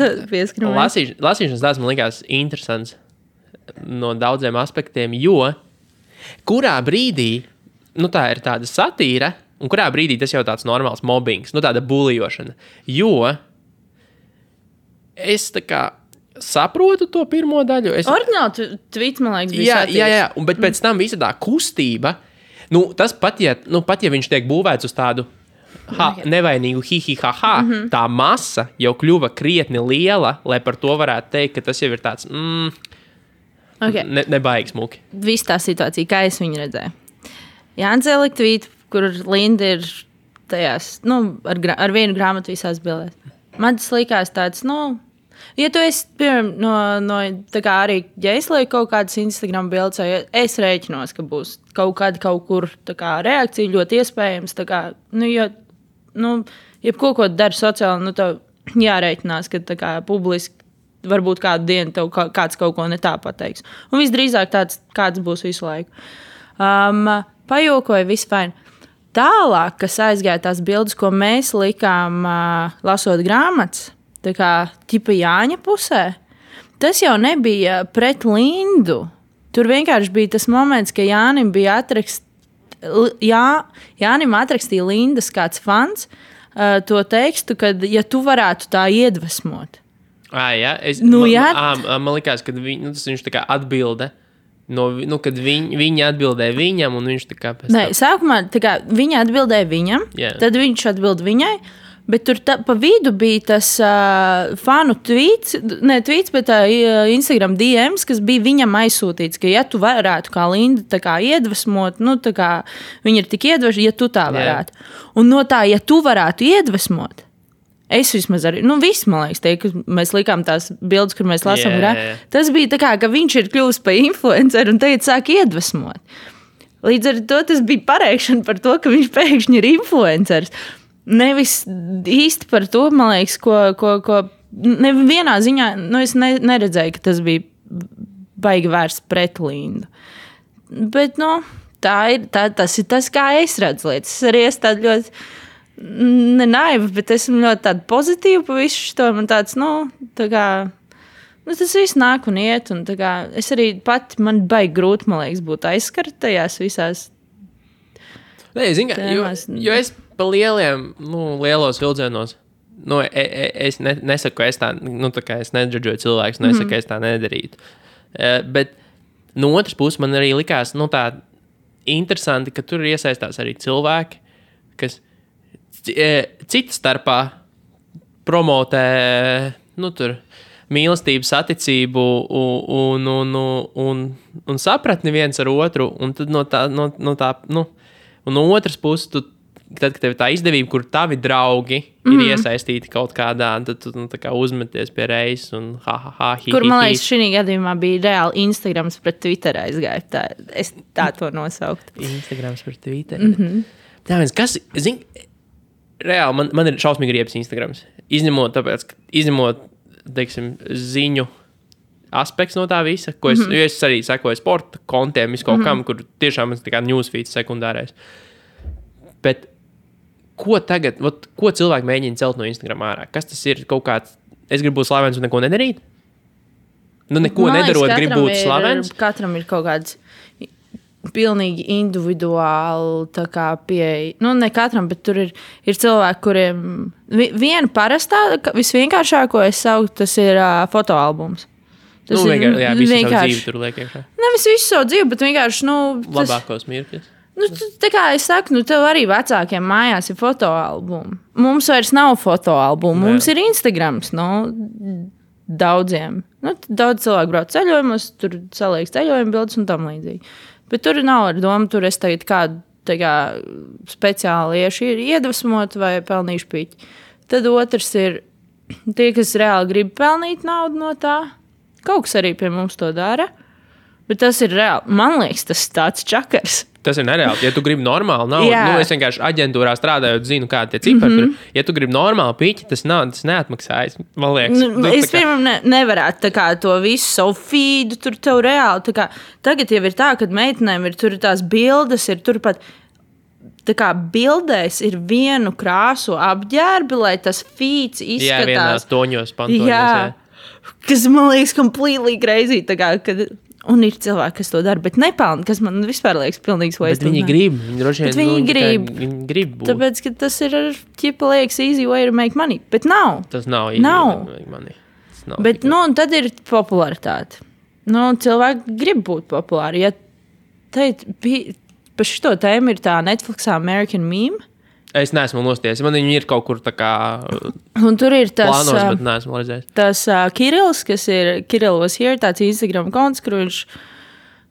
Lasīšanas stāsts man likās interesants no daudziem aspektiem, jo kurā brīdī, tā ir tāda satīra, un kurā brīdī tas jau tāds normāls mobbings, tāda bulijošana. Jo es tā kā saprotu to pirmo daļu. Ordināli tvīts, man liekas, bija satīrs. Jā, bet pēc tam visa tā kustība, tas pat, ja viņš tiek būvēts uz tādu nevainīgu hi-hi-ha-ha, tā masa jau kļuva krietni liela, lai par to varētu teikt, ka tas jau ir tāds, nebaigi smuki. Viss tā situācija, kā es viņu redzēju. Jānis ielika tvītu, kur Linda ir tajās, ar vienu grāmatu visās bildēs. Man tas likās tāds, ja tu esi, piemēram, tā kā arī, ja es lieku kaut kādas Instagram bildes, ja es rēķinos, ka būs kaut kur tā kā reakcija ļoti iespējams, tā kā, jebko, ko dari sociāli, tev jārēķinās, ka tā kā publiski varbūt kādu dienu tev kāds kaut ko ne tā pateiks. Un visdrīzāk kāds būs visu laiku. Pajokoja, viss fine. Tālāk, kas aizgāja tās bildes, ko mēs likām lasot grāmatas, tā kā ķipa Jāņa pusē, tas jau nebija pret Lindu. Tur vienkārši bija tas moments, ka Jānim bija Jānim atrakstīja Lindas kāds fans to tekstu, kad, ja tu varētu tā iedvesmot. Jā, man likās, ka viņš tā kā atbilde, kad viņa atbildēja viņam, un viņš tā kā pēc tam. Nē, sākumā tā kā viņa atbildēja viņam, tad viņš atbild viņai, bet tur pa vidu bija tas fanu tweets, bet Instagram DMs, kas bija viņam aizsūtīts, ka ja tu varētu kā Linda tā kā iedvesmot, tā kā viņa ir tik iedvesmot, ja tu tā varētu. Un no tā, ja tu varētu iedvesmot, es vismaz arī, viss, man liekas, ka mēs likām tās bildes, kur mēs lasām, tas bija tā kā, ka viņš ir kļuvis par influenceru un tagad sāk iedvesmot. Līdz ar to tas bija pareikšana par to, ka viņš pēkšņi ir influenceris. Nevis īsti par to, man liekas, ko nevienā ziņā, es neredzēju, ka tas bija baigi vērsts pret Lindu. Bet, tas ir tas, kā es redzu lietas. Es arī esmu tāda ļoti nenaiva, bet esmu ļoti tāda pozitīva pa visu šo. Man tāds, tā kā, tas viss nāk un iet, un tā kā, es arī pati, man baigi grūti, man liekas, būt aizskart tajās visās. Nē, jo es pa lielos vilcienos, es nesaku, ka es tā, tā kā es nedžudžoju cilvēkus, nesaku, ka es tā nedarītu. Bet no otras puses man arī likās, tā interesanti, ka tur iesaistās arī cilvēki, kas cita starpā promotē, tur mīlestību, saticību un sapratni viens ar otru, un tad un no otras puses, tad, kad tev ir tā izdevība, kur tavi draugi ir iesaistīti kaut kādā, tad tu tā kā uzmeties pie reizes un hi. Kur, man liekas, šī gadījumā bija reāli Instagrams pret Twitter aizgāja. Es tā to nosauktu. Instagrams pret Twitter. Tā viens, kas, reāli, man ir šausmīgi riebs Instagrams. Izņemot, teiksim, ziņu aspekts no tā visa, ko jo es arī sekoju sporta kontiem, kaut kam, kur tiešām ir tā kā newsfeeds sekundārais. Bet ko tagad, ko cilvēki mēģina celt no Instagram ārā? Kas tas ir? Kaut kāds, es gribu būt slavens un neko nedarīt? Neko nedarot, gribu būt slavens? Katram ir kaut kāds pilnīgi individuāli tā kā pieeja. Ne katram, bet tur ir cilvēki, kuriem viena parastā, visvienkāršāko es sauktu, tas ir fotoalbums. Tas ir vienkārši. Jā, visu savu dzīvi tur liek iekšā. Nevis visu savu dzīvi, bet vienkārši, labākos mirkļus. Tā kā es saku, tev arī vecākiem mājās ir fotoalbumi. Mums vairs nav fotoalbumu, mums ir Instagrams. Daudziem. Daudz cilvēku brauc ceļojumos, tur saliek ceļojumu bildes un tam līdzīgi. Bet tur nav ar domu, tur es tagad kādu speciāli iedvesmot vai pelnīšu piķi. Tad otrs ir tie, kas reāli grib pelnīt naudu no tā. Kaut kas arī pie mums to dara. Bet tas ir reāli. Man liekas, tas ir tāds čakars. Tas ir nereāli. Ja tu gribi normāli naudu, es vienkārši aģentūrā strādājot, zinu, kādi tie cipari tur. Ja tu gribi normāli piķi, tas neatmaksājas. Man liekas. Es pirmam nevarētu tā kā to visu savu feedu tur tev reāli. Tā kā, tagad jau ir tā, kad meitenēm ir tur tās bildes, ir turpat tā kā bildēs ir vienu krāsu apģērbi, lai tas feeds izskatās. Jā, vienās toņos, pantoņos. Jā. Kas man liekas completely crazy. Tā kā, kad... Un ir cilvēki, kas to dara, bet nepelna, kas man vispār liekas pilnīgs waste. Bet viņi grib. Viņi grib būt. Tāpēc, ka tas ir, ķipa liekas, easy way to make money. Bet nav. Tas nav easy way to make money. Bet, un tad ir popularitāte. Cilvēki grib būt populāri. Ja par šito tēmu ir tā Netflixā American Meme. Es neesmu nostiesis. Man viņi ir kaut kur tā kā un tur ir tas, plānos, bet neesmu redzējis. Tas Kirills, kas ir Kirill was here, tāds Instagram konts, kur viņš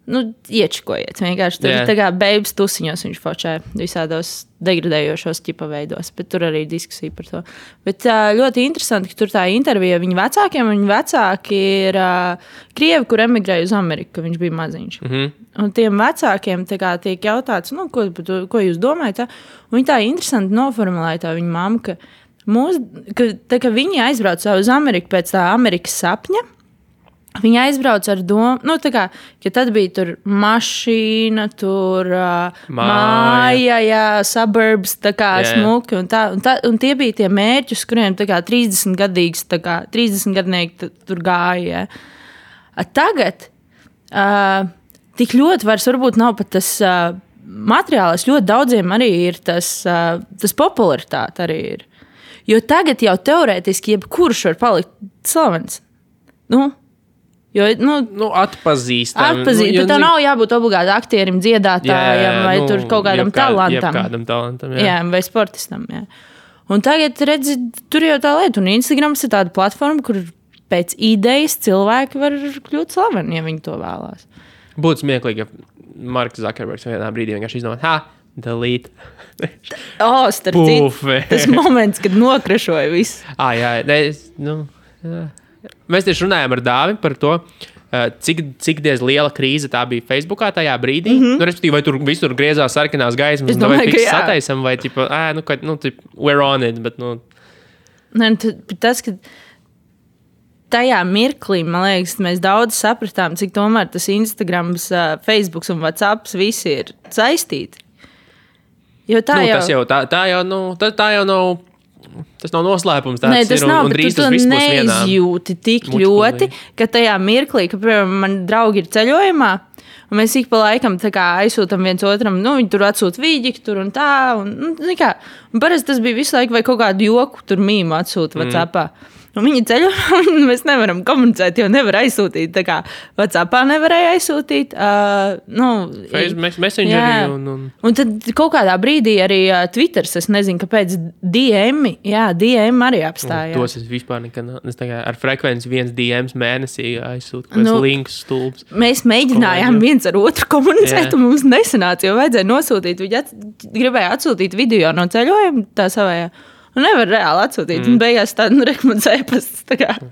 iečikojiet. Vienkārši tur tā kā babes tusiņos viņš fočē visādos degradējošos ķipa veidos, bet tur arī diskusija par to. Bet ļoti interesanti, ka tur tā intervija viņa vecākiem, un viņa vecāki ir krievi, kur emigrēja uz Ameriku, ka viņš bija maziņš. Un tiem vecākiem kā, tiek jautāts, ko jūs domājat? Un viņi tā interesanti noformulēja tā viņa mamma, ka viņi aizbrauc uz Ameriku pēc tā Amerikas sapņa. Viņi aizbrauc ar domu, ka tad bija tur mašīna, tur māja, suburbs, tā kā smuki. Un tie bija tie mērķi, uz kuriem 30 gadnieki tur gāja. Tagad tik ļoti vairs varbūt nav pat tas materiāls. Ļoti daudziem arī ir tas popularitāte arī ir. Jo tagad jau teorētiski jebkurš var palikt slavens. Jo, atpazīstam. Bet tev nav jābūt obligāti aktierim, dziedātājam vai tur kaut kādam talantam. Kādam talantam, vai sportistam. Jā. Un tagad, redzi, tur jau tā lieta. Un Instagrams ir tāda platforma, kur pēc idejas cilvēki var kļūt slaveni, ja viņi to vēlās. Būtu smieklīgi, ja Marks Zuckerbergs vienā brīdī vienkārši izdomāt, delete. Starp citu, tas moments, kad nokrašoja visu. Mēs tieši runājām ar Dāvi par to, cik diez liela krīze tā bija Facebookā tajā brīdī. Respektīvi, vai tur visur griezās sarkanās gaismas, vai fiks sataisam, vai tipa, we're on it, bet, Tas, ka tajā mirklī, man liekas, mēs daudz sapratām, cik tomēr tas Instagrams, Facebooks un WhatsApps visi ir saistīti. Jo tā jau nav... Tas nav noslēpums. Tas nav, bet tu neizjūti tik ļoti, ka tajā mirklī, ka, piemēram, man draugi ir ceļojumā, un mēs ik pa laikam aizsūtam viens otram, viņi tur atsūt vīģi, tur un tā, un parasti tas bija visu laiku vai kaut kādu joku tur mīmu atsūt WhatsAppā. Un viņi ceļo, un mēs nevaram komunicēt, jo nevar aizsūtīt. Tā kā WhatsAppā nevarēja aizsūtīt. Messengerī. Un tad kaut kādā brīdī arī Twitters, es nezinu, kāpēc DM arī apstājās. Tos es vispār nekad, es ar frekvenci 1 DMs mēnesī aizsūtu, links stulbs. Mēs mēģinājām viens ar otru komunicēt, un mums nesanāca, jo vajadzēja nosūtīt. Viņi gribēja atsūtīt video no ceļojuma tā savējā. Un nevar reāli atsūtīt. Un beigās tādu rekomendēju pasts.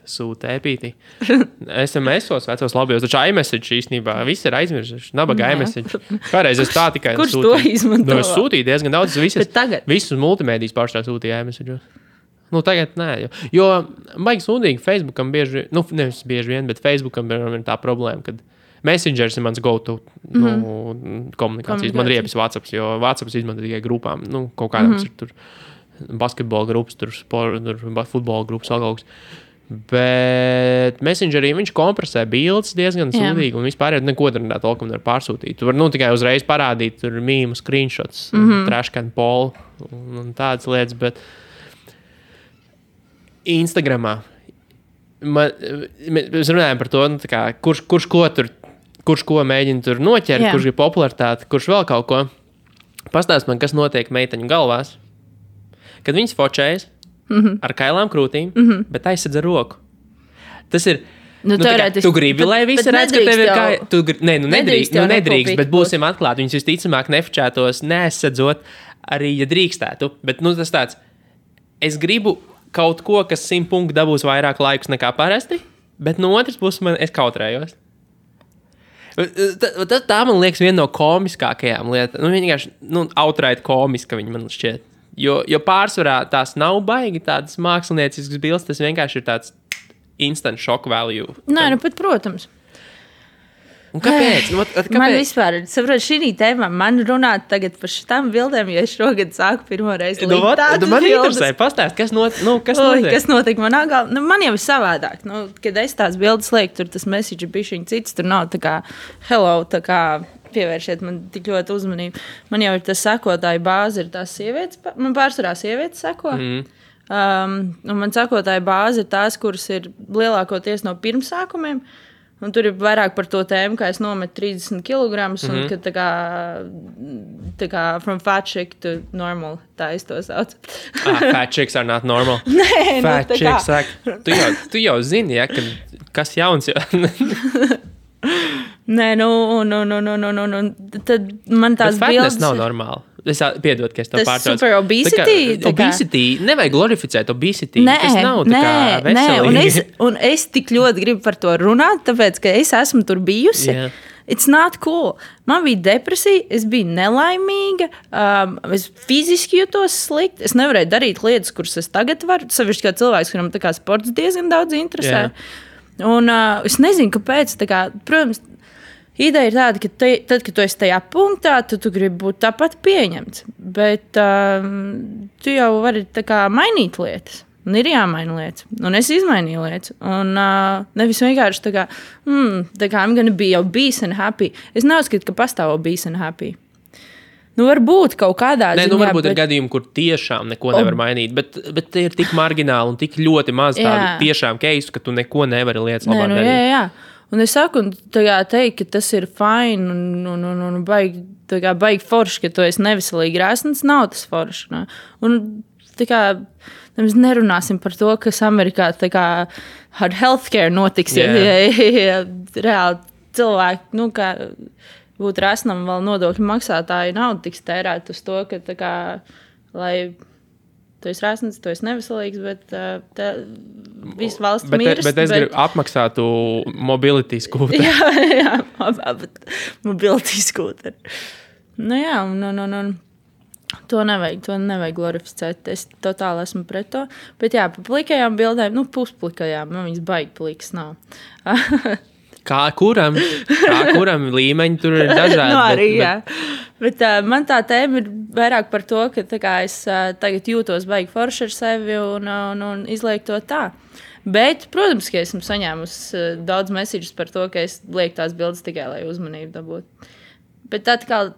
Sūta epītī. SMS-os vecos labajos. Taču iMessage īstenībā viss ir aizmirsuši. Nabaga iMessage. Kādreiz es tā tikai kurš sūtīju. To izmanto? Es sūtīju diezgan daudz. Visus multimēdijas pārstāv sūtīja iMessage. Tagad nē. Jo baigi sūdīgi Facebookam bieži, nevis bieži vien, bet Facebookam ir tā problēma, kad Messengers ir mans go-to komunikācijas. Man riepjas WhatsApps, jo WhatsApps izmanto tikai grupām. Kaut kādām ir tur basketbola grupas, tur futbola grupas, algaugs. Bet Messengerī viņš kompresē bildes diezgan sūdīgi, un vispār neko tur nevar pārsūtīt. Tu vari tikai uzreiz parādīt tur mīmu, screenshots, trashcan polu un tādas lietas, bet Instagramā mēs runājam par to, kurš ko mēģina tur noķert, kurš ir popularitāte, kurš vēl kaut ko. Pastāst man, kas notiek meiteņu galvās, kad viņas fočējas ar kailām krūtīm, bet aizsedz ar roku. Tas ir... tu gribi, lai visi redz, ka tev ir kā... Nedrīkst, bet būsim atklāti. Viņas visticamāk nefočētos, neaizsedzot, arī, ja drīkstētu. Bet, tas tāds, es gribu kaut ko, kas 100 punktu dabūs vairāk laikus nekā parasti, bet no otras puses es kautrējos. Tā man liekas viena no komiskākajām lietām. Vienkārši, outright komiska viņa man šķiet. Jo pārsvarā tās nav baigi tādas mākslinieciskas bildes, tas vienkārši ir tāds instant shock value. Nē, pat protams. Un kāpēc? Kāpēc? Man vispār, saprot, šī tēmā man runāt tagad par šitām bildēm, jo es šogad sāku pirmo reizi likt tādas man bildes. interesē, pastāst, kas notiek? Kas notiek manā galvā? Man jau ir savādāk. Kad es tās bildes lieku, tur tas message bišķiņ cits, tur nav tā kā hello, tā kā pievēršiet man tik ļoti uzmanību. Man jau ir tas sekotāju bāze, ir tās sievietes, man pārsvarā sievietes seko. Un man sekotāju bāze ir tās, kuras ir lielākoties no pirmsākumiem. Un tur ir vairāk par to tēmu, kā es nometu 30 kg un ka tā kā from fat chick to normal, tā es to saucu. Fat chicks are not normal. Nē, fat chicks saka, tu jau zini, ja, kas jauns jau. Nē, tad man tās bildes... Bet fatness bildes... nav normāli. Es piedod, ka es to pārtraucu. Tas super obesity? Obesity, nevajag glorificēt obesity. Tas nav tā kā veselīgi. Un es tik ļoti gribu par to runāt, tāpēc, ka es esmu tur bijusi. Yeah. It's not cool. Man bija depresija, es biju nelaimīga, es fiziski jutos slikti, es nevarēju darīt lietas, kuras es tagad varu, sevišķi kā cilvēks, kuram tā kā sports diezgan daudz interesē. Yeah. Un es nezinu, kāpēc, tā kā, protams, ideja ir tāda, ka tad, kad tu esi tajā punktā, tu gribi būt tāpat pieņemts. Bet tu jau vari tā kā mainīt lietas. Un ir jāmaina lietas. Un es izmainīju lietas. Un nevis vienkārši tā kā I'm gonna be obese and happy. Es neuzskatu, ka pastāv obese and happy. Varbūt kaut kādā ziņā. Varbūt ir gadījumi, kur tiešām neko nevar mainīt. Bet tie ir tik margināli un tik ļoti maz tādu tiešām keisu, ka tu neko nevari lietas labāk darīt. Jā. Un es saku, teikt, ka tas ir fine un baigi forši, ka tu esi neveselīgi rēsns, nav tas forši. Ne? Un tā kā mēs nerunāsim par to, kas Amerikā tā kā ar healthcare notiks, ja reāli cilvēki, kā būtu rēsnam vēl nodokļu maksātāji naudu tiks tērēt uz to, ka tā kā, lai... Tu esi rēsns, tu esi neveselīgs, bet viss valsts mirst. Bet es gribu apmaksātu mobility skūteri. Jā, mobility skūteri. To nevajag glorificēt. Es totāli esmu pret to. Bet jā, pa plikajām bildēm, pusplikajām, viņas baigi plikas nav. Kā kuram līmeņi tur ir dažādi. Arī, jā. Bet man tā tēma ir vairāk par to, ka es tagad jūtos baigi forši ar sevi un izlieku to tā. Bet, protams, ka esmu saņēmusi daudz messages par to, ka es lieku tās bildes tikai, lai uzmanību dabūtu. Bet atkal,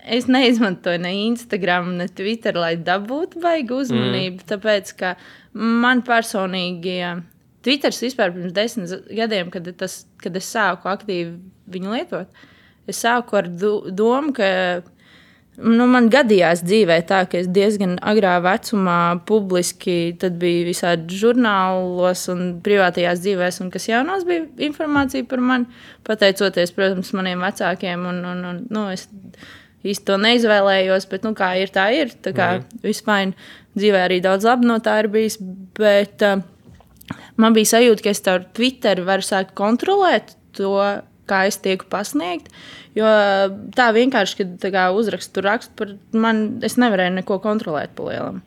es neizmantoju ne Instagram, ne Twitter, lai dabūtu baigi uzmanību, tāpēc, ka man personīgi... Twitters vispār pirms 10 gadiem, kad es sāku aktīvi viņu lietot, es sāku ar domu, ka man gadījās dzīvē tā, ka es diezgan agrā vecumā publiski tad bija visādi žurnālos un privātajās dzīvēs, un kas jaunās bija informācija par mani, pateicoties, protams, maniem vecākiem, un es īsti to neizvēlējos, bet, kā ir, tā ir, tā kā vispār dzīvē arī daudz labi no tā ir bijis, bet... Man bija sajūta, ka es ar Twitter varu sākt kontrolēt to, kā es tieku pasniegt. Jo tā vienkārši, kad uzrakstu par mani, es nevarēju neko kontrolēt pa lielam.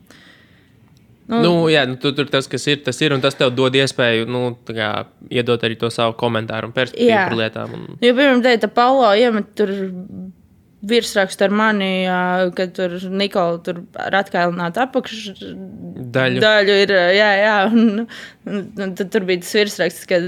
Tur tas, kas ir, tas ir, un tas tev dod iespēju, iedot arī to savu komentāru un perspektīvu par lietām. Jo, piemēram, teica, Paulo iemet tur virsrakstu ar mani, ka tur Nikola tur ar atkailinātu apakšdaļu ir, jā, un Un tad tur bija tas virsraksts, ka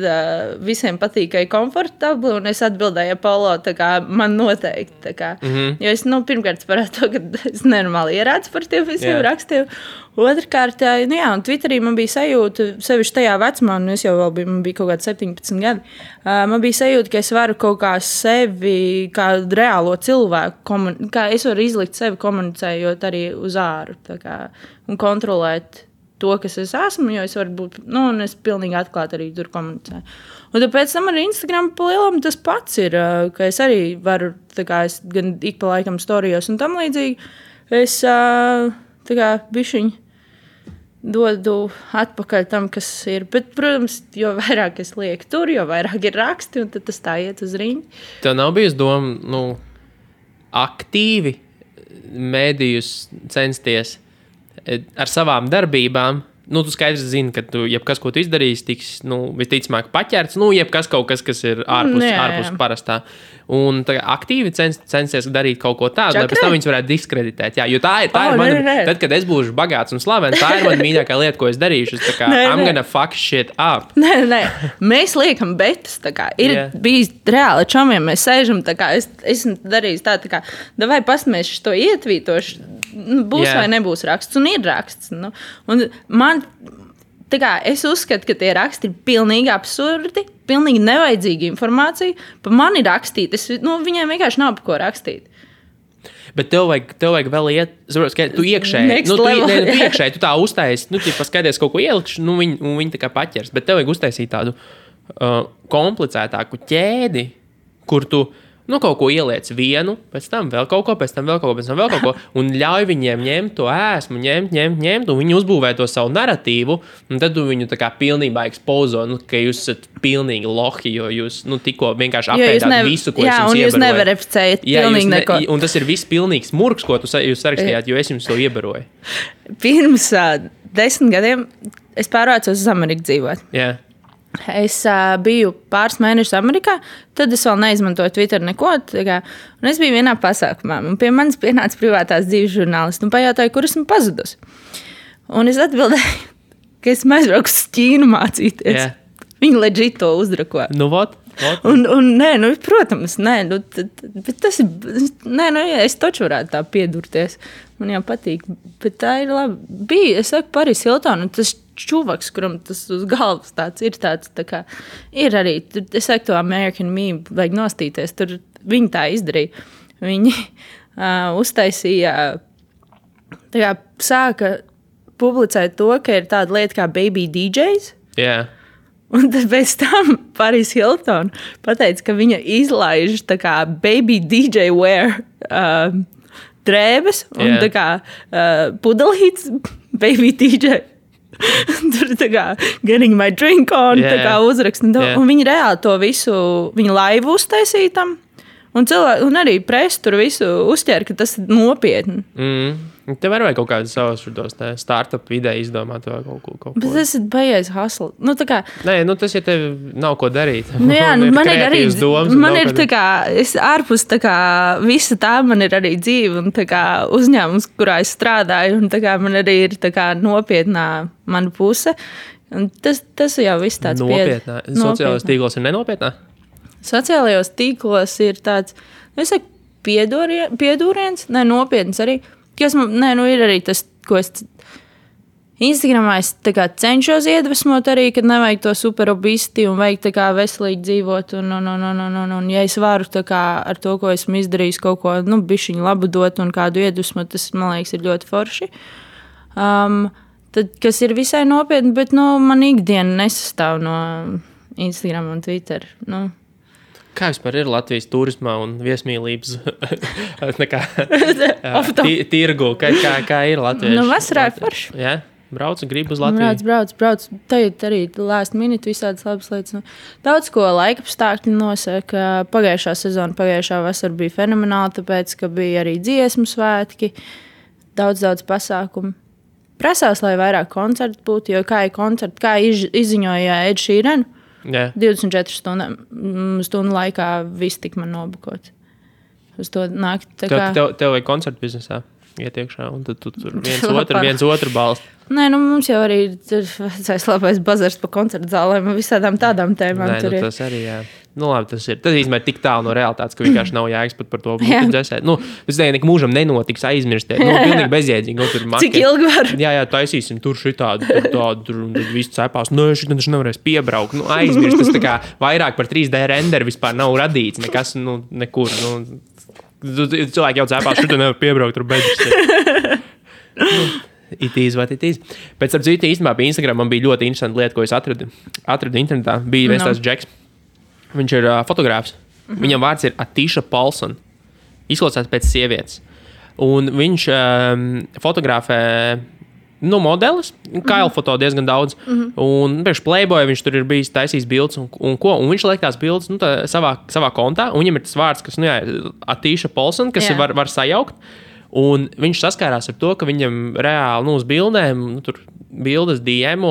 visiem patīk, ka ir komfortabli, un es atbildēju Polo, tā kā man noteikti. Tā kā. Jo es, pirmkārt, parādu to, ka es nenormāli ierādu par tiem visiem rakstiem. Otrkārt, un Twitterī man bija sajūta, sevišķi tajā vecumā, un es jau vēl biju, man bija kaut kādi 17 gadi, man bija sajūta, ka es varu kaut kā sevi, kā reālo cilvēku, kā es varu izlikt sevi komunicējot arī uz āru, tā kā, un kontrolēt to, kas es esmu, jo es varu būt, un es pilnīgi atklāti arī tur komunicēju. Un tāpēc tam ar Instagram pa lielam tas pats ir, ka es arī varu, tā kā es gan ik pa laikam storijos un tam līdzīgi, es tā kā bišķiņ dodu atpakaļ tam, kas ir. Bet, protams, jo vairāk es lieku tur, jo vairāk ir raksti, un tad tas tā iet uz riņķi. Tev nav bijis doma, aktīvi mēdījus censties ar savām darbībām. Tu skaidrs zini, ka jebkas, ko tu izdarīsi, tiks visticamāk paķerts. Jebkas kaut kas, kas ir ārpus parastā. Un aktīvi censties darīt kaut ko tādu, lai pēc tam viņus varētu diskreditēt. Jā, jo tā ir mana. Tad, kad es būšu bagāts un slavens, tā ir mana mīļākā lieta, ko es darīšu. I'm gonna fuck shit up. Nē. Mēs liekam betas. Ir bijis reāli čomiem, mēs sēžam, es esmu darījis tā kā, davai pasmēšu to ietvītošu. Būs vai nebūs raksts, un ir raksts. Un man, es uzskatu, ka tie raksti ir pilnīgi absurdi, pilnīgi nevajadzīga informācija. Pa mani rakstīt, viņiem vienkārši nav pa ko rakstīt. Bet tev vajag vēl iet, ka tu iekšēji, tu tā uztaisi, paskaties kaut ko ielikšu, viņi tā kā paķers. Bet tev vajag uztaisīt tādu komplicētāku ķēdi, kur tu kaut ko ieliec vienu, pēc tam vēl kaut ko, pēc tam vēl kaut ko, un ļauj viņiem ņemt to ēsmu, ņemt, un viņi uzbūvē to savu narratīvu, un tad tu viņu tā kā pilnībā ekspozo, ka jūs esat pilnīgi lohi, jo jūs, tikko vienkārši apēdāt visu, ko es jums iebaroju. Jā, un jūs neverificējat pilnīgi neko. Un tas ir viss pilnīgs murks, ko jūs sarakstījāt, jo es jums to iebaroju. Pirms 10 gadiem es pārvācos uz Ameriku dzīvot. Jā. Es biju pāris mēnešus Amerikā, tad es vēl neizmantoju Twitter neko. Un es biju vienā pasākumā, un pie manis pienāca privātās dzīves žurnālisti un pajautāja, kur esmu pazudus. Un es atbildēju, ka esmu aizbraukusi uz Ķīnu mācīties. Yeah. Viņi legit to uzdrako. What? Un nē, protams, nē, bet tas ir, es taču varētu tā piedurties. Man jau patīk, bet tā ir labi. Es saku Paris Hilton, un tas čuvaks, kuram tas uz galvas tāds ir tāds, tā kā ir arī, es saku to American meme, vajag nostīties, tur viņi tā izdarīja. Viņi uztaisīja, tā kā sāka publicēt to, ka ir tāda lieta kā baby DJs. Jā. Yeah. Un tad pēc tam Paris Hilton pateica, ka viņa izlaiž tā kā baby DJ wear drēbes un tā kā pudelītes baby DJ. Tur tā kā getting my drink on, tā kā uzrakst. Un viņi reāli to visu, viņi laivu uztaisīja tam. Un arī presi tur visu uzķēra, ka tas ir nopietni. Tev var vajag kaut kādu savus startup ideju izdomāt vai kaut ko. Bet tas ir baies hustle. Nē, tas, ja tev nav ko darīt. Man ir arī, man ir tā kā, es ārpus tā kā, visa tā man ir arī dzīve un tā kā uzņēmums, kurā es strādāju, un tā kā man arī ir tā kā nopietnā mana puse. Un tas jau viss tāds nopietnā. Sociālajos tīklos ir nenopietnā? Sociālajos tīklos ir tāds, es saku, piedūriens, nopietns arī. Ir arī tas, ko es Instagramā es cenšos iedvesmot arī, kad nevajag to superobisti un vajag veselīgi dzīvot. Un ja es varu ar to, ko esmu izdarījis, kaut ko bišķiņu labu dot un kādu iedvesmot, tas, man liekas, ir ļoti forši. Tad, kas ir visai nopietni, bet man ikdiena nesastāv no Instagram un Twitter. Kā vispār ir Latvijas turismā un viesmīlības tirgu? Kā ir Latvieši? Vasarā ir forši. Jā? Brauc, gribu uz Latviju? Brauc. Tagad arī last minute visādas labas lietas. Daudz ko laikapstākļi nosaka. Pagājušā sezona, pagājušā vasara bija fenomenāla, tāpēc, ka bija arī dziesmu svētki. Daudz pasākumu. Prasās, lai vairāk koncertu būtu, jo kā ir koncerti, kā izziņoja Ed Sheeran, 24 stundu laikā viss tik man nobukot. Uz to nākt. Tev vajag koncertu biznesā? iet iekšā, un tad tu tur viens otru balstu. Nē, nu mums jau arī ir labais bazars pa koncertu zālēm un visādām tādām tēmām. Nē, nu, tas arī, jā. Nu, labi, tas īstenībā ir tik tālu no realitātes, ka vienkārši nav jēgas pat par to būtu dzēsēt. Nu, tas nekad mūžam nenotiks aizmirstēt. Nu, pilnīgi bezjēdzīgi. Nu, tur cik ilgi var? Jā, taisīsim tur šitādu, tur, un tad viss cepās. Nu, šitā taču nevarēs piebraukt. Nu, aizmirst. Tas tā kā vairāk par 3D renderu vispār nav radīts. Nekas, nu, nekur. Nu, cilvēki jau cepās, šitā nevar piebraukt, tur beidz. It is what it is. Pēc tam citu īstenībā pie Instagram man bija ļoti interesanta lieta, ko es atradu internetā. Bija viens tās Džeks. Viņš ir fotogrāfs. Viņam vārds ir Atīša Paulson. Izklausās pēc sievietes. Un viņš fotografē modelis. Kailu foto diezgan daudz. Un priekš Playboy viņš tur ir bijis taisījis bildes un ko. Un viņš liek tās bildes savā kontā. Un viņam ir tas vārds, kas Atīša Paulson, kas var sajaukt. Un viņš saskārās ar to, ka viņam reāli uz bildēm, tur bildes diemo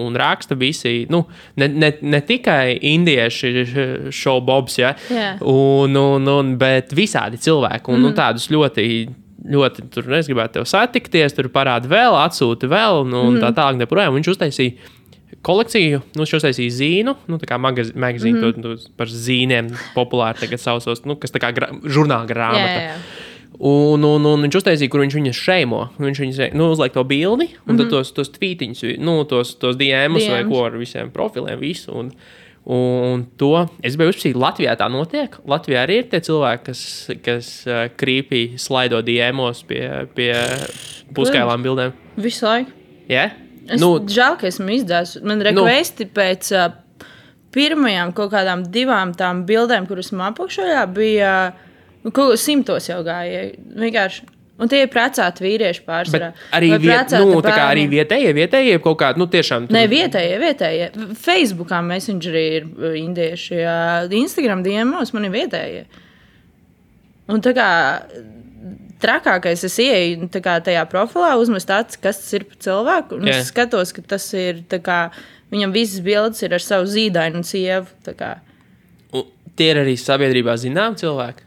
un raksta visi, ne tikai indieši showbobs, ja, bet visādi cilvēki. Un tādus ļoti, tur es gribētu tev satikties, tur parāda vēl, atsūta vēl, un tā tālāk neprojām. Viņš uztaisīja kolekciju, viņš uztaisīja zīnu, tā kā magazīnu, par zīniem populāri tagad sausos, kas tā kā žurnāla grāmata. Jā. Un viņš uztaisīja, kur viņš viņas šeimo. Viņš viņas uzliek to bildi, un tad tos tvītiņus, tos DMs vai ko ar visiem profiliem, visu. Un to es biju uzpasīt, Latvijā tā notiek. Latvijā arī ir tie cilvēki, kas creepy slaido DMos pie puskailām bildēm. Visu laiku. Jā? Es žēl, ka esmu izdzēs. Man rekvesti pēc pirmajām kaut kādām 2 tām bildēm, kuras man apakšojā bija... Kaut 100 jau gāja. Vienkārši. Un tie ir precēti vīrieši pārsvarā. Arī, tā kā arī vietējie kaut kādi, tiešām. Nē, vietējie. Facebookā Messengerī ir indieši. Instagram DMos man ir vietējie. Un tā kā trakākais es ieeju tajā profilā, uzmest acis, kas tas ir par cilvēku. Un es skatos, ka tas ir tā kā, viņam visas bildes ir ar savu zīdainu un sievu. Tā kā. Un tie ir arī sabiedrībā zinām cilvēki.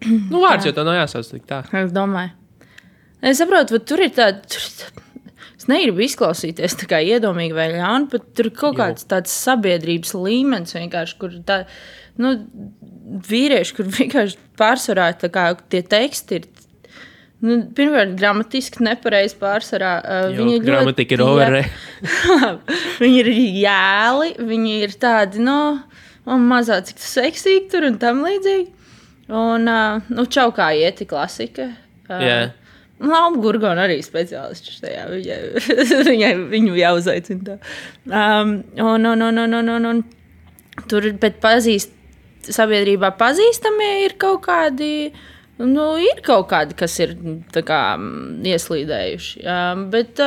Vārds jau tā nav jāsauc tik tā. Es domāju. Es saprotu, tur ir tāda... Es negribu izklausīties tā kā iedomīgi vai ļauni, bet tur ir kaut kāds tāds sabiedrības līmenis vienkārši, kur tā... Vīrieši, kur vienkārši pārsvarā tā kā tie teksti ir... Pirmkārt, gramatiski nepareizi pārsvarā. Gramatika ir overre. Viņi ir jēli, viņi ir tādi, mazā cik seksīgi tur un tam līdzīgi. Un čaukā ieti klasika. Lauma Gurgona arī speciālists tajā. Viņu jāuzaicina tā. Un tur bet sabiedrībā pazīstamie ir kaut kādi, kas ir tā kā ieslīdējuši. Bet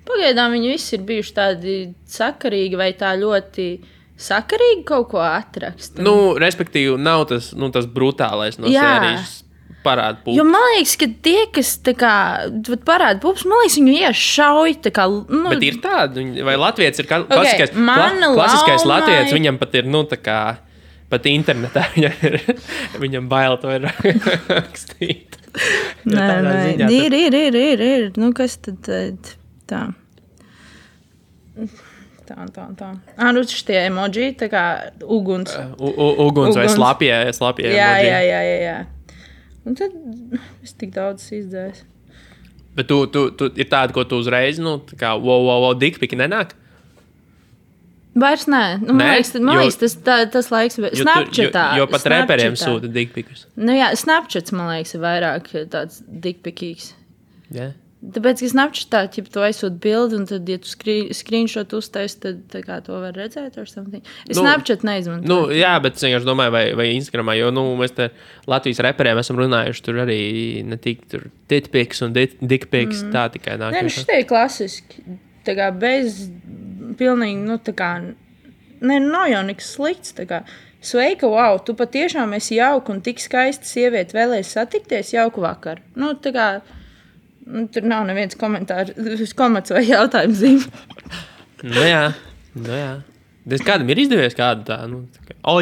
pagaidām viņi visi ir bijuši tādi sakarīgi vai tā ļoti... Sakarīgi kaut ko atrakst. Respektīvi, nav tas brutālais no sērijas parāda pupas. Jo man liekas, ka tie, kas tā kā parāda pupas, man liekas, viņu iešauj tā kā... Bet ir tādi, vai Latvijas ir klasiskais Latvijas, viņam pat ir, tā kā, pat internetā viņam bail to ir rakstīt. Nē, ir. Kas tad tā? Tā. Šitie emoji, tā kā uguns. Uguns vai slapjie emoji. Jā. Un tad es tik daudz izdzēju. Bet tu ir tāda, ko tu uzreiz, tā kā wow, dikpiki nenāk? Vairs nē. Man liekas, tas laiks... Snapchatā. Jo pat reperiem sūta dikpikus. Snapchats, man liekas, ir vairāk tāds dikpikīgs. Jā. Tāpēc, ka Snapchatā, ja tu aizsūti bildi, un tad, ja tu screenshot uztaisi, tad tā kā to var redzēt or something. Es Snapchat neizmantoju. Jā, bet es vienkārši domāju, vai Instagramā, jo, mēs te Latvijas reperiem esam runājuši, tur arī ne tik tur titpiks un dickpiks, tā tikai nāk. Nē, šitie ir klasiski. Tā kā bez pilnīgi, tā kā, nav jau nekas slikts, tā kā. Sveika, wow, tu patiešām esi jauka un tik skaista sieviete vēlēs satikties, jauku vakar. Tā kā... Tur nav neviens komats vai jautājums zīme. Jā. Kādam ir izdevies kādu tā?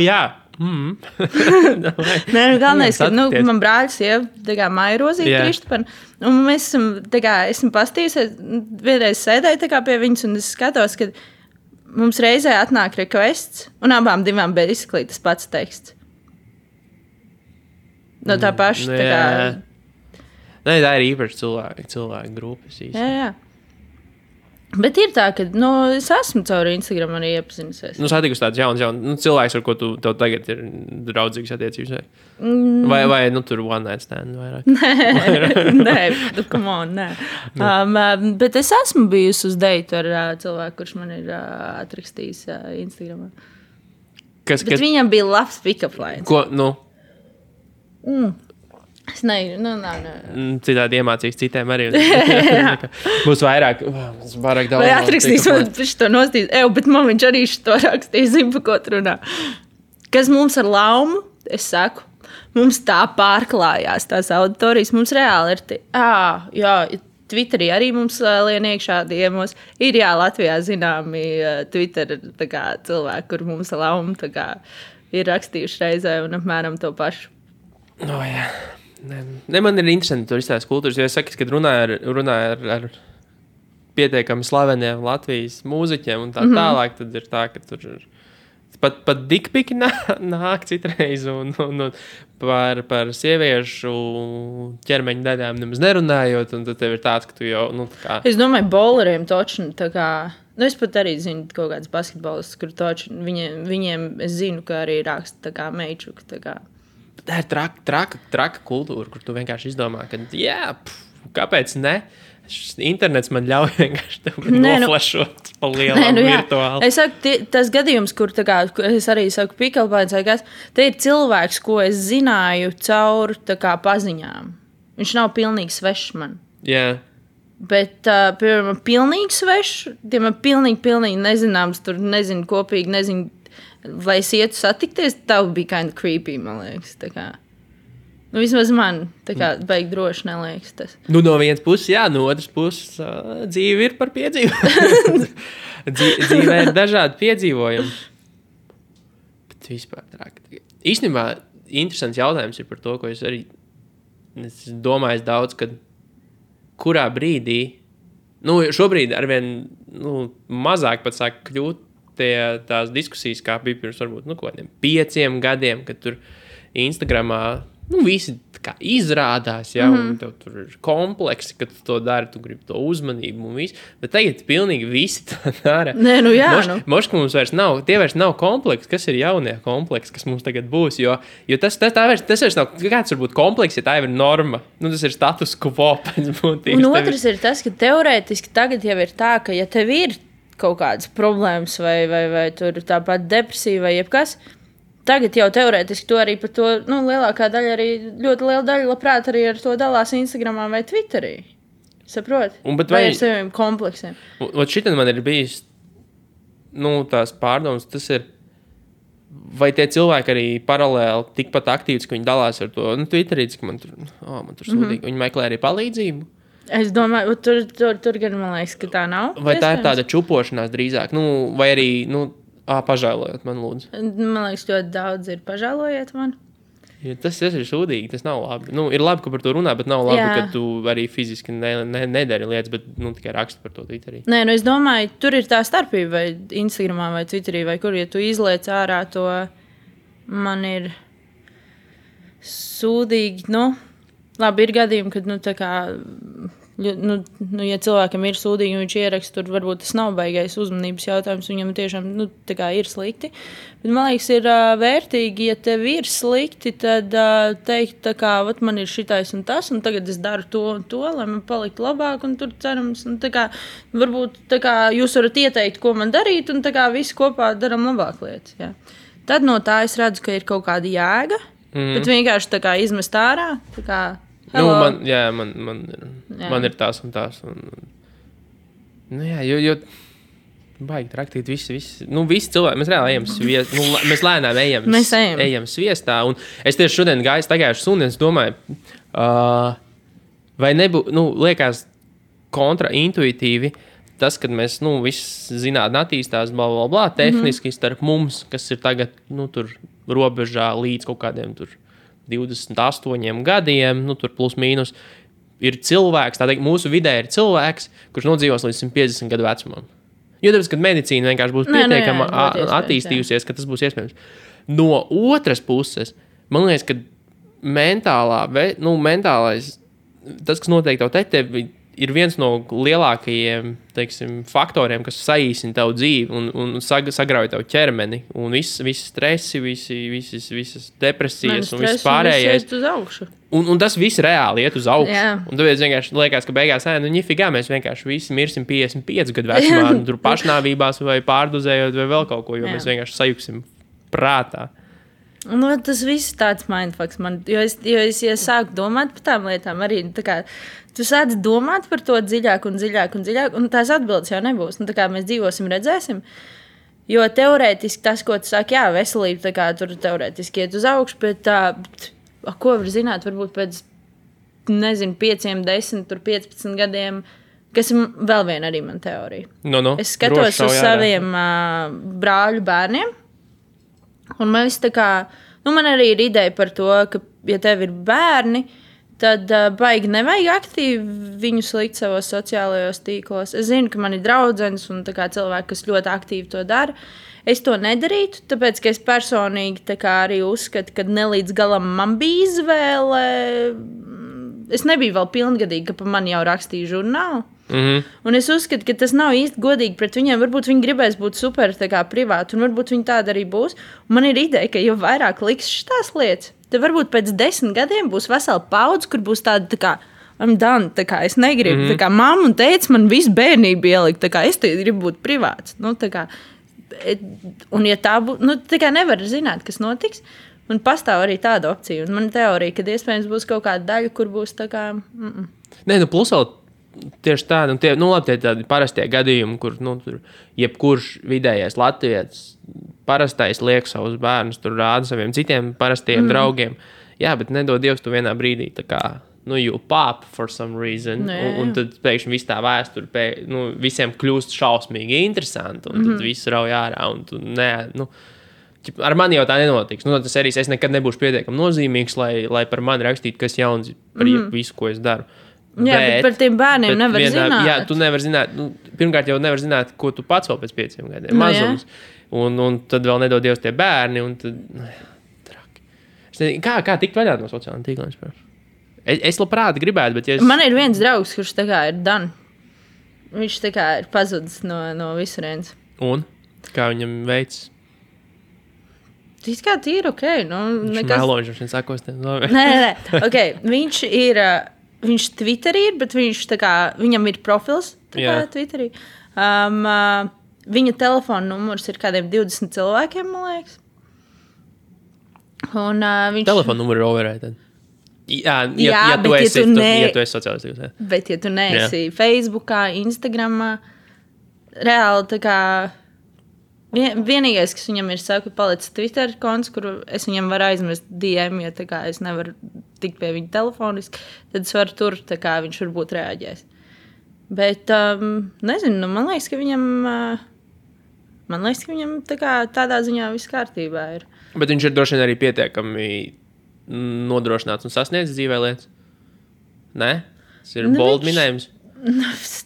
Jā, Nē, nu, galvenais, ka man brāļs jau māja rozīti Kristupam. Un mēs esam pastījusies, vienreiz sēdēju pie viņas, un es skatos, ka mums reizē atnāk requests, un abām divām basically tas pats teksts. No tā paša. Nē, tā ir īpaši cilvēku grupas īsti. Jā. Bet ir tā, ka es esmu caur Instagram arī iepazinusies. Satikusi tāds jauns cilvēks, ar ko tev tagad ir draudzīgas attiecības. Vai tur one night stand vairāk? Nē, come on, nē. Bet es esmu bijusi uz deitu ar cilvēku, kurš man ir atrakstījis Instagramā. Bet viņam bija labs pick-up lines. Ko, Es nezinu, citādi iemācīs citiem arī. Būs vairāk daudz. Vai atrakstīs man to nostīt? Bet man viņš arī šo rakstīja, zinu, pa ko runā. Kas mums ar Laumu, es saku, mums tā pārklājās tās auditorijas. Mums reāli ir Twitterī arī mums lien iekšā diemos. Ir Latvijā zināmi Twitter cilvēki, kur mums ar Laumu ir rakstījuši reizē un apmēram to pašu. Jā. Ne, man ir interesanti tur izstāst kultūras, jo es saku, kad runāju ar pietiekami slaveniem Latvijas mūziķiem un tā tālāk, tad ir tā, ka tur pat dikpiki nāk citreiz un par sieviešu ķermeņa daļām nemaz nerunājot, un tad tev ir tāds, ka tu jau, Es domāju, bowleriem točni, es pat arī zinu kaut kāds basketbolistus, kur točni, viņiem es zinu, ka arī raksta meičuka, Tā ir traka kultūra, kur tu vienkārši izdomā, ka kāpēc ne? Internets man ļauj vienkārši noflašot pa lielām virtuāli. Es saku, tas gadījums, kur es arī saku pikalpājums, te ir cilvēks, ko es zināju caur paziņām. Viņš nav pilnīgi svešs man. Jā. Bet, piemēram, pilnīgi svešs, tiem ir pilnīgi nezināms, tur nezinu kopīgi, nezinu, vai es ietu satikties, tā bija kind of creepy, man liekas. Vismaz man baigi droši neliekas tas. No vienas puses, no otras puses, dzīve ir par piedzīvojumu. Dzīvē ir dažādi piedzīvojumi. Bet vispār traki. Īstenībā interesants jautājums ir par to, ko es arī domāju daudz, kad kurā brīdī, šobrīd arvien mazāk pat sāk kļūt tās diskusijas, kā bija pirms varbūt, kādiem 5 gadiem, kad tur Instagramā, visi izrādās, un tev tur ir kompleksi, kad tu to dari, tu gribi to uzmanību un visu, bet tagad pilnīgi visi to dara. Nē, Moška mums vairs nav, tie vairs nav kompleksi, kas ir jaunie kompleksi, kas mums tagad būs, jo tas vairs nav, kāds varbūt kompleks, ja tā jau ir norma, tas ir status quo pēc būtības. Un otrs ir tas, ka teorētiski tagad jau ir tā, ka ja tev ir kaut kādas problēmas vai tur tāpat depresija vai jebkas, tagad jau teorētiski to arī par to, lielākā daļa arī, ļoti liela daļa labprāt arī ar to dalās Instagramā vai Twitterī. Saproti? Vai ar saviem kompleksiem. Šitan man ir bijis, tās pārdomas, tas ir, vai tie cilvēki arī paralēli tikpat aktīvs, ka viņi dalās ar to, Twitterī, ka man tur sūdīgi, viņi meklē arī palīdzību. Es domāju, tur gan man liekas, ka tā nav. Vai tā ir tāda čupošanās drīzāk? Vai arī, pažēlojot man, lūdzu. Man liekas, ļoti daudz ir pažēlojiet man. Ja tas ir sūdīgi, tas nav labi. Ir labi, ka par to runā, bet nav labi, ka tu arī fiziski nedari lietas, bet tikai raksti par to Twitterī. Nē, es domāju, tur ir tā starpība, vai Instagramā vai Twitterī, vai kur, ja tu izliec ārā to, man ir sūdīgi, labi, ir gadījumi, kad, ja cilvēkam ir sūdīgi un viņš ieraksta, tur varbūt tas nav baigais uzmanības jautājums, viņam tiešām, ir slikti. Bet, man liekas, ir vērtīgi, ja tev ir slikti, tad teikt, man ir šitais un tas, un tagad es daru to un to, lai man paliktu labāk, un tur cerams, un varbūt jūs varat ieteikt, ko man darīt, un visi kopā daram labāk lietas. Jā. Tad no tā es redzu, ka ir kaut kāda jēga, bet vienkārši izmest ārā, man ir tās un tās. Jo baigi traktīt visi. Visi cilvēki, mēs reāli ejam sviestā. Mēs lēnām ejam sviestā. Un es tieši šodien gāju staigājuši suni, es domāju, vai nebūtu, liekas kontraintuitīvi tas, kad mēs, viss zinātnē attīstās, tehniski starp mums, kas ir tagad, tur robežā līdz kaut kādiem tur 28 gadiem, nu, tur plus mīnus, ir cilvēks, tā teikt, mūsu vidē ir cilvēks, kurš nodzīvos līdz 150 gadu vecumam. Jo tāpēc, kad medicīna vienkārši būs pietiekama attīstījusies, ka tas būs iespējams. No otras puses, man liekas, ka mentālais, tas, kas notiek tev ir viens no lielākajiem, teiksim, faktoriem, kas saīsina tavu dzīvi un sagrauj tavu ķermeni. Un visi stresi, visas depresijas un viss pārējais. Un tas viss reāli iet uz augšu. Jā. Un tāpēc vienkārši liekas, ka beigās, ņifigā, mēs vienkārši visi mirsim 55 gadu vecumā, tur pašnāvībās vai pārdozējot vai vēl kaut ko, jo mēs vienkārši sajuksim prātā. Nu, tas viss ir tāds mindfucks man, jo es sāku domāt par tām lietām arī, tā kā, tu sāc domāt par to dziļāk, un tās atbildes jau nebūs. Nu, tā kā mēs dzīvosim, redzēsim, jo teorētiski tas, ko tu saki, jā, veselība, tā kā tur teorētiski iet uz augšu, bet ko var zināt, varbūt pēc, 5, 10, 15 gadiem, kas ir vēl viena arī man teorija. No. Es skatos uz saviem brāļu bērniem, un man viss tā kā, man arī ir ideja par to, ka, ja tev ir bērni, tad baigi nevajag aktīvi viņus likt savos sociālajos tīklos. Es zinu, ka man ir draudzenes un tā kā cilvēki, kas ļoti aktīvi to dara. Es to nedarītu, tāpēc, ka es personīgi tā kā arī uzskatu, ka ne līdz galam man bija izvēle. Es nebiju vēl pilngadīga, ka pa mani jau rakstīja žurnālu. Un es uzskatu, ka tas nav īsti godīgi pret viņiem. Varbūt viņi gribēs būt super privāti, un varbūt viņi tāda arī būs. Un man ir ideja, ka jo vairāk liks šitās lietas, tad varbūt pēc 10 gadiem būs vesela paudze, kur būs tāda tā kā, I'm done, tā kā es negribu. Tā kā mamma un teica, man visu bērnību ielikt, tā kā es te gribu būt privāts. Nu, tā kā, un ja tā būtu, tā kā nevar zināt, kas notiks. Un pastāv arī tāda opcija. Un man teorija, ka iespējams būs kaut kāda daļa, kur būs tā kā... Nē, plus vēl tieši tādi, labi, tie tādi parastie gadījumi, kur, tur jebkurš vidējais latvietis parastais liek savus bērnus, tur rāda saviem citiem parastiem draugiem. Jā, bet nedod Dievs, tu vienā brīdī tā kā, you pop for some reason, un tad pēkšņi viss tā vēsture, visiem kļūst šausmīgi interesanti, un tad viss rauj ārā, un tu ar mani jau tā nenotiks. Tas arī es nekad nebūšu pietiekami nozīmīgs, lai par mani rakstītu, kas jauns par visu, ko es daru. Jā, bet par tiem bērniem nevar zināt. Jā, tu nevar zināt. Pirmkārt jau nevar zināt, ko tu pats vēl pēc 5 gadiem. Mazums. Un tad vēl nedod Dievs tie bērni. Un tad, traki. Kā tikt vaļā no sociālajiem tīkliem? Es labprāt gribētu, bet... Man ir viens draugs, kurš tā kā ir done. Viņš tā kā ir pazudis no visurienes. Un? Kā viņam veids? Tas kā tīri ok. Viņš meloņš, viņš sakos. Nē. Ok, viņš Twitterī ir, bet viņš tā kā, viņam ir profils Twitterī. Viņa telefona numurs ir kādiem 20 cilvēkiem, man liekas. Un, telefona numurs ir overrated. Ja tu esi sociālais tīkls. Bet ja tu neesi Facebookā, Instagramā, reāli tā kā vienīgais, kas viņam ir saku, palicis Twitter konts, kur es viņam varu aizmest DM, ja tā kā es nevaru tikt pie viņa telefoniski, tad es varu tur, tā kā viņš varbūt reaģēs. Bet, nezinu, man liekas, ka viņam tā kā tādā ziņā viss kārtībā ir. Bet viņš ir droši vien arī pietiekami nodrošināts un sasniedz dzīvē lietas? Nē? Tas ir bold minējums?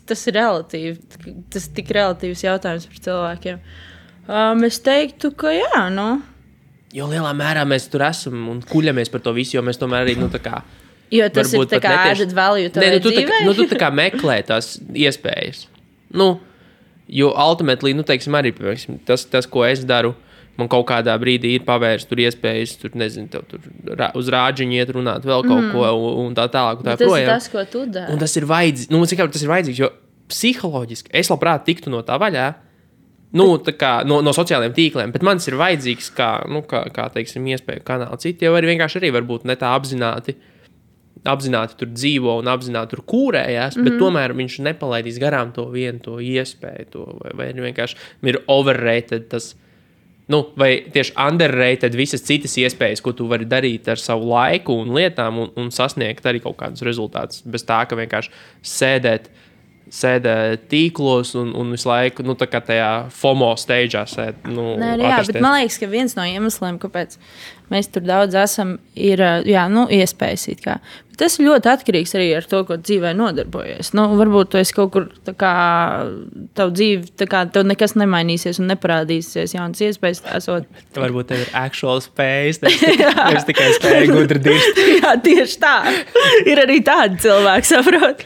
Tas ir relatīvi. Tas tik relatīvs jautājums par cilvēkiem. Es teiktu, ka jā, Jo lielā mērā mēs tur esam un kuļamies par to visu, jo mēs tomēr arī, tā kā... Jo tas ir tā kā added value tavai dzīvē? Tu tā kā meklē tās iespējas. Jo ultimately, teiksim, arī tas, ko es daru, man kaut kādā brīdī ir pavērst tur iespējas, tur, nezinu, tev tur uz rāģiņu iet runāt vēl kaut ko un tā tālāk. Tā tas ir tas, ko tu dari. Un tas ir vajadzīgs, tas ir vajadzīgs, jo psiholoģiski es labprāt tiktu no tā vaļā, tā kā no sociālajiem tīkliem, bet man tas ir vajadzīgs kā teiksim, iespēju kanāli. Citi jau vienkārši arī varbūt ne tā apzināti tur dzīvo un apzināti tur kūrējās, bet tomēr viņš nepalaidīs garām to vienu to iespēju, vai vienkārši ir overrated tas, vai tieši underrated visas citas iespējas, ko tu vari darīt ar savu laiku un lietām un sasniegt arī kaut kādus rezultātus, bez tā, ka vienkārši sēdēt sēdē tīklos un visu laiku, nu, tā kā tajā FOMO stage'ā sēd. Nu, jā, bet man liekas, ka viens no iemesliem, kāpēc mēs tur daudz esam, ir iespējas it kā. Bet tas ir ļoti atkarīgs arī ar to, ko dzīvē nodarbojies. Nu, varbūt tu esi kaut kur, tā kā, tavu dzīvi, tā kā tev nekas nemainīsies un neparādīsies jaunas iespējas. Varbūt tev ir actual spējas, nevis tikai spēja gudri dirst. Jā, tieši tā. Ir arī tādi cilvēki, saprot.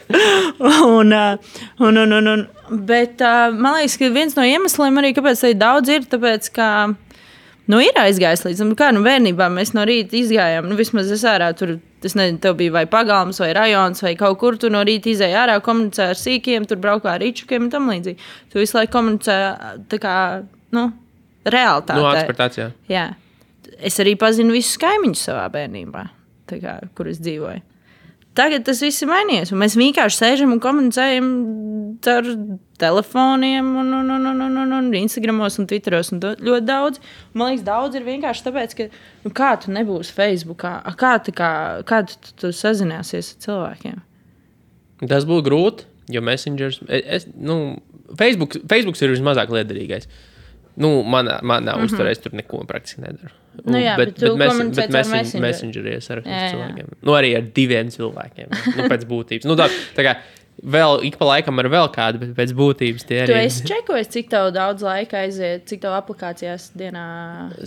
Bet man liekas, ka viens no iemesliem arī, kāpēc tā daudz ir, tāpēc, ka ir aizgājis līdz tam, kā bērnībā mēs no rīta izgājām. Vismaz es ārā tur, es nezinu, tev bija vai pagalms, vai rajons, vai kaut kur tu no rīta izēji ārā, komunicē ar sīkiem, tur braukā ar ričukiem un tam līdzīgi. Tu visu laiku komunicē tā kā, realitātē. Ekspertācijā. Jā. Es arī pazinu visus kaimiņus savā bērnībā, tā kā, kur es dzīvoju. Tagad tas viss ir mainījies, un mēs vienkārši sēžam un komunicējam ar telefoniem, un Instagramos un Twitteros un ļoti daudz. Man liekas, daudz ir vienkārši tāpēc, ka kā tu nebūsi Facebookā, kā tu sazināsies ar cilvēkiem? Tas būtu grūti, jo Messengers, Facebooks ir vismazāk liederīgais. Manā uzturēs tur neko praktiski nedaru. Bet Messengerī es ar cilvēkiem. Arī ar 2 cilvēkiem. Pēc būtības. Tā kā vēl ik pa laikam ar vēl kādu, bet pēc būtības tie arī. Tu esi čekojis, cik tev daudz laika aiziet, cik tev aplikācijās dienā?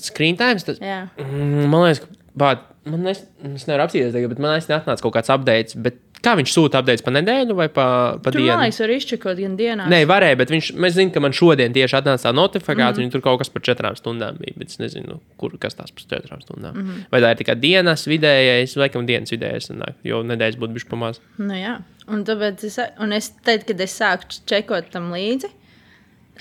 Screen times? Jā. Man liekas, es nevaru apsīties tagad, bet man atnāca kaut kāds updates, bet kā viņš sūta updates pa nedēļu vai pa dienu? Man liekas, var izčekot gan dienās. Nē, varēja, bet mēs zinām, ka man šodien tieši atnāca tā notifikācija, un tur kaut kas par 4 stundām bija, bet es nezinu, kas tās par 4 stundām. Vai tā ir tikai dienas vidējais, laikam dienas vidējais, jo nedēļas būtu bišķi pamaz. Jā, un tāpēc es teicu, kad es sāku čekot tam līdzi,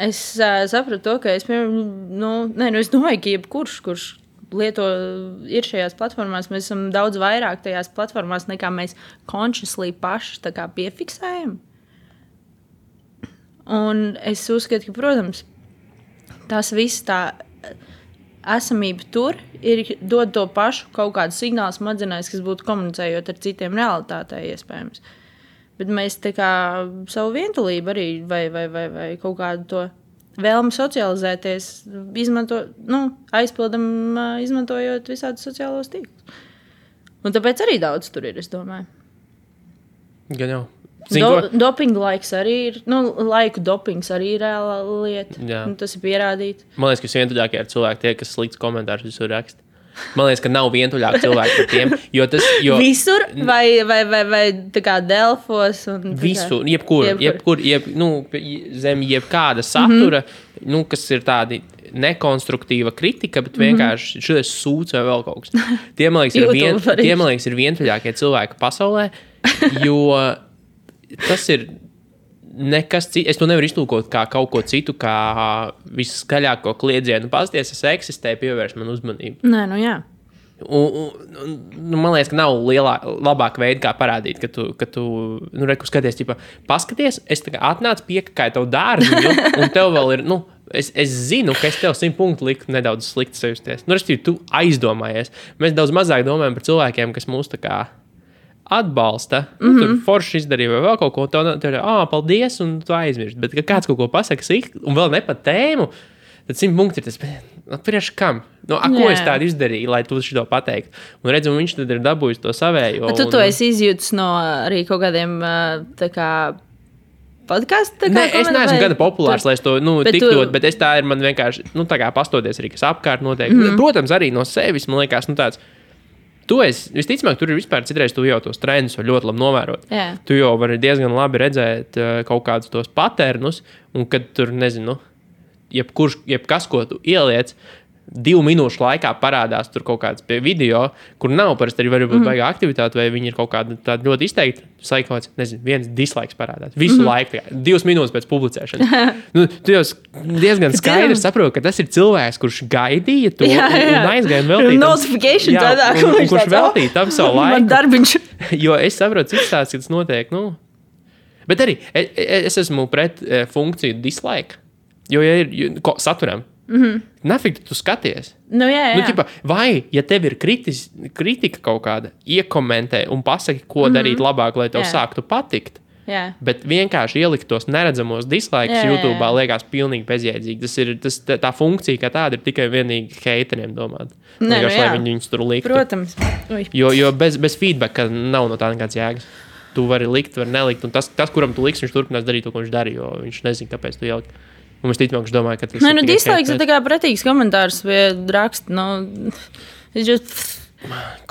es sapratu to, ka es domāju, ka jebkurš, kurš ir šajās platformās, mēs esam daudz vairāk tajās platformās, nekā mēs consciously paši tā kā piefiksējam. Un es uzskatu, ka, protams, tas viss tā esamība tur dod to pašu kaut kādu signālu smadzenēs, kas būtu komunicējot ar citiem realitātē iespējams. Bet mēs tā kā savu vientulību arī vai kaut kādu to vēlmi socializēties, aizpildam, izmantojot visādus sociālos tīklus. Un tāpēc arī daudz tur ir, es domāju. Gan jau. Dopinga laiks arī ir, laiku dopings arī ir reāla lieta. Tas ir pierādīts. Man liekas, ka visvientuļākie ir cilvēki tie, kas slikts komentārus visur raksta. Man liekas, ka nav vientuļāk cilvēki par tiem. Visur vai tā kā Delfos? Visur, jebkur, zem jebkāda satura, kas ir tādi nekonstruktīva kritika, bet vienkārši šis sūds vai vēl kaut kas. Tie, man liekas, ir vientuļākie cilvēki pasaulē, jo tas ir nekas cits. Es to nevaru iztulkot kā kaut ko citu, kā visskaļāko kliedzienu. Pasties, es eksistēju, pievērš man uzmanību. Nē, jā. Man liekas, ka nav labāka veida, kā parādīt, ka tu reku skaties, paskaties, es atnācu piekakāju tavu dārziņu, un tev vēl ir, es zinu, ka es tev 100 punktu liku nedaudz slikti sajusties. Respektīvi, tu aizdomājies. Mēs daudz mazāk domājam par cilvēkiem, kas mūs tā kā atbalsta, tur forši izdarīja vai vēl kaut ko, tev ir, paldies, un tu aizmirsti. Bet, kad kāds kaut ko pasaka sīk, un vēl ne pa tēmu, tad 100 punkti ir tas, priekš kam? Ko es tādu izdarīju, lai tu šito pateiktu? Un redzu, viņš tad ir dabūjis to savējo. Bet tu esi izjūtis no arī kaut kādiem, tā kā, podcastu? Nē, es neesmu gana populārs, lai es to tik dot, bet es tā ir man vienkārši, tā kā pastoties arī, kas apkārt notiek. Protams, arī no sevis, man liekas, tāds, visticamāk, tur ir vispār citreiz tu jau tos trendus var ļoti labi novērot. Jā. Tu jau vari diezgan labi redzēt kaut kādus tos paternus, un kad tur, nezinu, jebkas, ko tu ieliec, 2 minūšu laikā parādās tur kaut kāds pie video, kur nav parasti arī varbūt baigā aktivitāte, vai viņi ir kaut kāda tāda ļoti izteikta, saikots, nezinu, viens dislikes parādās. Visu laiku, 2 minūtes pēc publicēšanas. Tu jau diezgan skaidri saproti, ka tas ir cilvēks, kurš gaidīja to un aizgāja veltīt. Notification tādā, kurš veltīja tam savu laiku. Man darbiņš. Jo es saprotu, cik tāds, ka tas notiek, Bet arī es esmu pret funkciju dislike, jo ja ir saturam. Nafig tu skaties. Jā. Vai, ja tev ir kritika kaut kāda, iekomentē un pasaki, ko darīt labāk, lai tev sāktu patikt. Jā. Bet vienkārši ielikt tos neredzamos dislaikus YouTube liekas pilnīgi bezjēdzīgi. Tā funkcija, kā tāda, ir tikai vienīgi hateriem domāt. Vienkārši, lai viņi viņus tur liktu. Protams. Jo bez feedbacka nav no tā nekāds jēgas. Tu vari likt, vari nelikt. Un tas, kuram tu liks, viņš turpinās darīt to, ko viņš darīja, jo viņš nezina, kāpēc tu ielikt. Un es ticamāk, viņš domāja, ka tas ir dislaiks ir tā kā pretīgs komentārs vai raksts.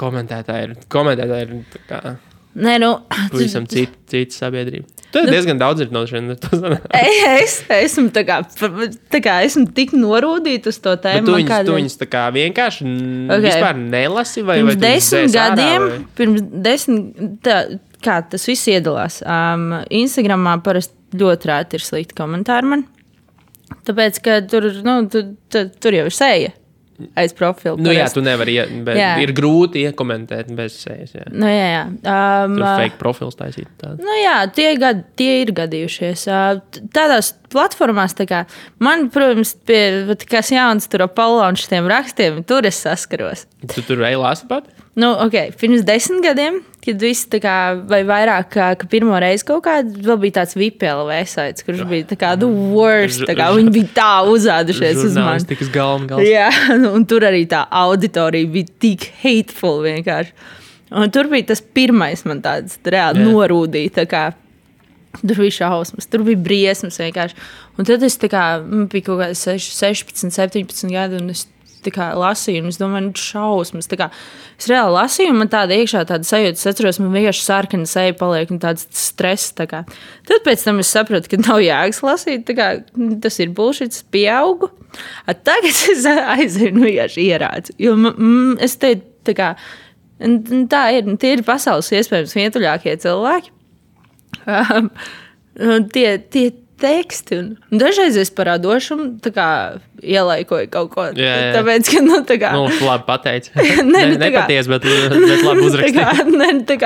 Komentētāji ir tā kā... Nē, pavisam cita sabiedrība. Tu diezgan daudz ir no šiem. Es esmu esmu tik norūdīta uz to tēmu. Tu viņus tā kā vienkārši vispār nelasi? Pirms 10 kā tas viss iedalās. Instagramā parasti ļoti rēti ir slikti komentāri man. Tāpēc, ka tur jau ir seja. Aiz profilu. Jā, tu nevari, bet ir grūti iekomentēt bez sejas. Jā. Jā. Tur fake profils taisīt. Tie ir gadījušies. Tādās platformās, man, protams, kas jauns tur Apollo un šitiem rakstiem, tur es saskaros. Tu tur ej lasi pat? Pirms 10 gadiem, kad viss vai vairāk, ka pirmo reizi kaut kādā vēl bija tāds VPLV saits, kurš bija the worst, viņi bija tā uzādušies uz mani. Žurnālistikas galvas. Jā, un tur arī tā auditorija bija tik hateful vienkārši. Un tur bija tas pirmais man tāds reāli norūdīja, tur bija šausmas, tur bija briesmas vienkārši. Un tad es bija kaut kādi 16, 17 gadi, un es lasīju, un es domāju, šausmas. Es reāli lasīju, un man tāda iekšā tāda sajūta, es atceros, man vienkārši sarkana seja paliek, un tāds stress. Tad pēc tam es sapratu, ka nav jēgas lasīt, tas ir bullshit, es pieaugu. Tagad es aizēju, vienkārši ierācu. Jo es teicu, tie ir pasaules iespējams vientuļākie cilvēki. Tie teksti. Un dažreiz es parādošumu ielaikoju kaut ko. Jā. Tāpēc, ka, labi pateici. Nepaties, bet labi uzrakstīji.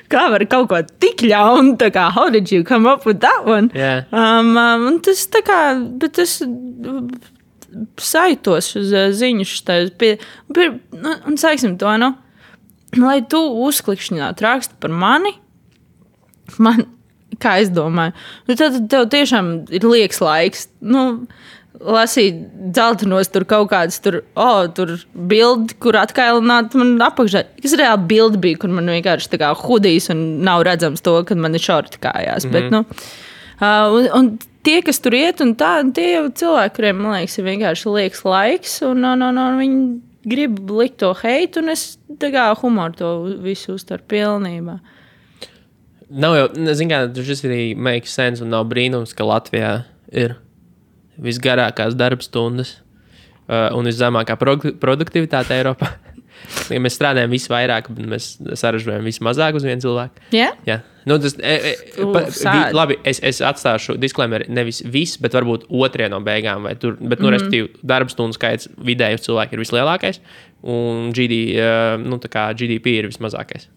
Kā var kaut ko tik ļaunu, how did you come up with that one? Yeah. Un tas bet es saitos uz ziņu un saiksim to, lai tu uzklikšķināt rakstu par mani, kā es domāju. Tad tev tiešām ir liekas laiks. Lasīt dzeltenos tur kaut kādas tur bildi, kur atkailināt man apakšā. Kas reāli bildi bija, kur man vienkārši hudijs un nav redzams to, kad man ir šorti kājās. Bet, un tie, kas tur iet, un tie jau cilvēki, kuriem, man liekas, ir vienkārši liekas laiks, un viņi grib likt to heitu, un es humoru to visu uztveru pilnībā. Nav jau, šis arī makes sense un nav brīnums, ka Latvijā ir visgarākās darbstundas un viszemākā produktivitāte Eiropā. Ja mēs strādājam visvairāk, bet mēs saražojam vismazāk uz vienu cilvēku. Yeah? Jā. Labi, es atstāšu disclaimer nevis viss, bet varbūt otrie no beigām. Respektīvi, darbstundu skaits vidēji uz cilvēku ir vislielākais. Un GDP ir vismazākais.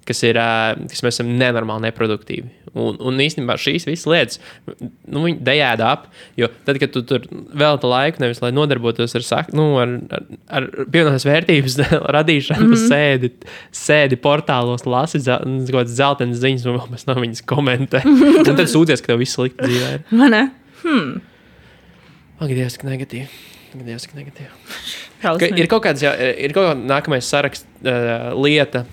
Kas mēs esam nenormāli neproduktīvi. Un īstenībā šīs visas lietas, viņi dejēda ap, jo tad, kad tu tur velta laiku, nevis lai nodarbotos ar pievienotās vērtības radīšanu, sēdi portālos, lasi kaut kādas zeltenas ziņas, un vēl pēc tam viņas komentē. Un tad sūdzies, ka tev viss slikti dzīvē ir. Man ne? Ak, Dievs, ka negatīvi. Ir kaut kāda nākamais saraksts lieta,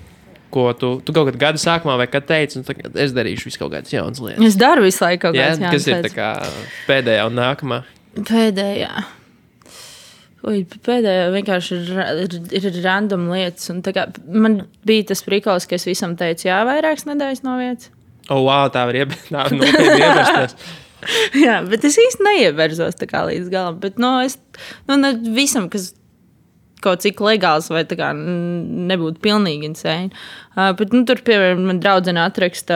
ko tu kaut kad gada sākumā vai kad teici, un es darīšu visu kaut kādas jaunas lietas. Es daru visu laiku kaut kādas jaunas lietas. Kas ir tā kā pēdējā un nākamā? Pēdējā vienkārši ir random lietas. Un man bija tas prikols, ka es visam teicu, vairākas nedēļas no vietas. Wow, tā var nopietni ievērsties. Jā, bet es īsti neieverzos līdz galam. Bet es visam, kas kaut cik legāls vai nebūtu pilnīgi insane. Bet tur, piemēram, man draudzene atraksta,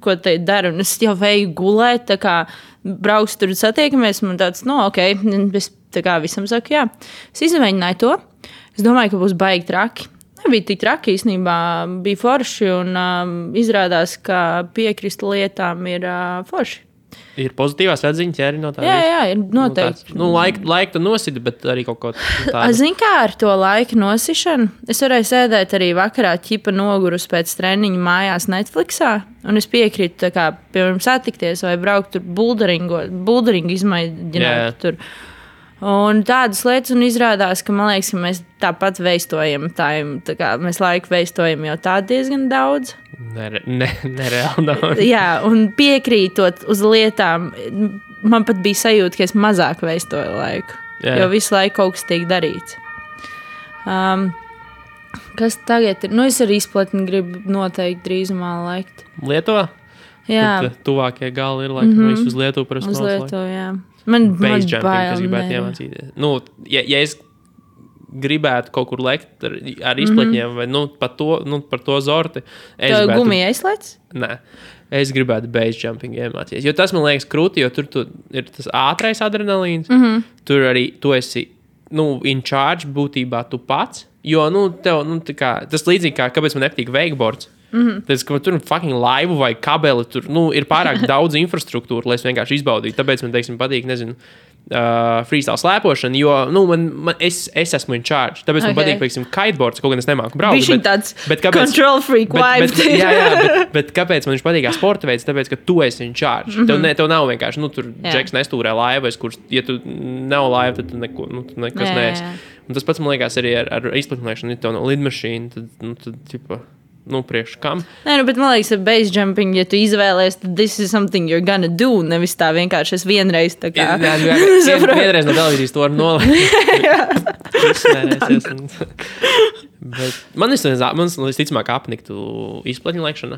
ko te dara, un es jau veju gulēt, brauks tur satiekamies, man tāds, es visam saku, jā. Es izmēģināju to. Es domāju, ka būs baigi traki. Nebija tik traki, īstenībā bija forši, un izrādās, ka piekrist lietām ir forši. Ir pozitīvās atziņas, ja arī no tā. Jā, ir noteikti. Laika tu nosidi, bet arī kaut ko tādu. Zini, kā ar to laika nosišanu? Es varēju sēdēt arī vakarā ķipa nogurus pēc treniņa mājās Netflixā, un es piekrītu, tā kā, piemēram, satikties vai braukt tur bulderingu izmēģināt tur. Un tādas lietas, un izrādās, ka man liekas, ka mēs tāpat veistojam mēs laiku veistojam jau tā diezgan daudz. Nereāli daudz. Jā, un piekrītot uz lietām, man pat bija sajūta, ka es mazāk veistoju laiku, jo visu laiku kaut kas tiek darīts. Kas tagad ir? Es ar izplatni gribu noteikti drīzumā laikt. Lietuvā? Jā. Tad tuvākie gali ir laikam visu uz Lietuvu parasti uz Lietuvu, jā. Man base jumping, kas bail, gribētu iemācīties. Ja es gribētu kaut kur lekt ar izpletņiem vai par to zorti. Tev gumija aizslēdz? Nē. Es gribētu base jumping iemācīties. Jo tas man liekas krūti, jo tur ir tas ātrais adrenalīns. Tur arī tu esi in charge būtībā tu pats. Jo tev, tas līdzīgi kā, kāpēc man nepatīk wakeboards. Tāpēc, ka tur fucking laivu vai kabeli, tur ir pārāk daudz infrastruktūra, lai es vienkārši izbaudītu. Tāpēc man, teiksim, patīk, freestyle slēpošana, jo es esmu in charge. Tāpēc man patīk, teiksim, kiteboards, kaut gan es nemāku braukt. Viņš ir tāds control freak vibe. Bet kāpēc man viņš patīk kā sporta veids? Tāpēc, ka tu esi in charge. Tev nav vienkārši, tur džeks nestūrē laivas, kurš, ja tu nav laiva, tad tu nekas neesi. Un tas pats, man liekas, arī ar izplatināšanu, ja tev nav lidmašīna, tad tipa... priekš kam. Nē, bet man liekas, ar base jumping, ja tu izvēlies, tad this is something you're gonna do, nevis tā vienkārši es vienreiz tā kā... Vienreiz no televīzijas to var nolikt. Bet man visticamāk apniktu izplatņu laikšana.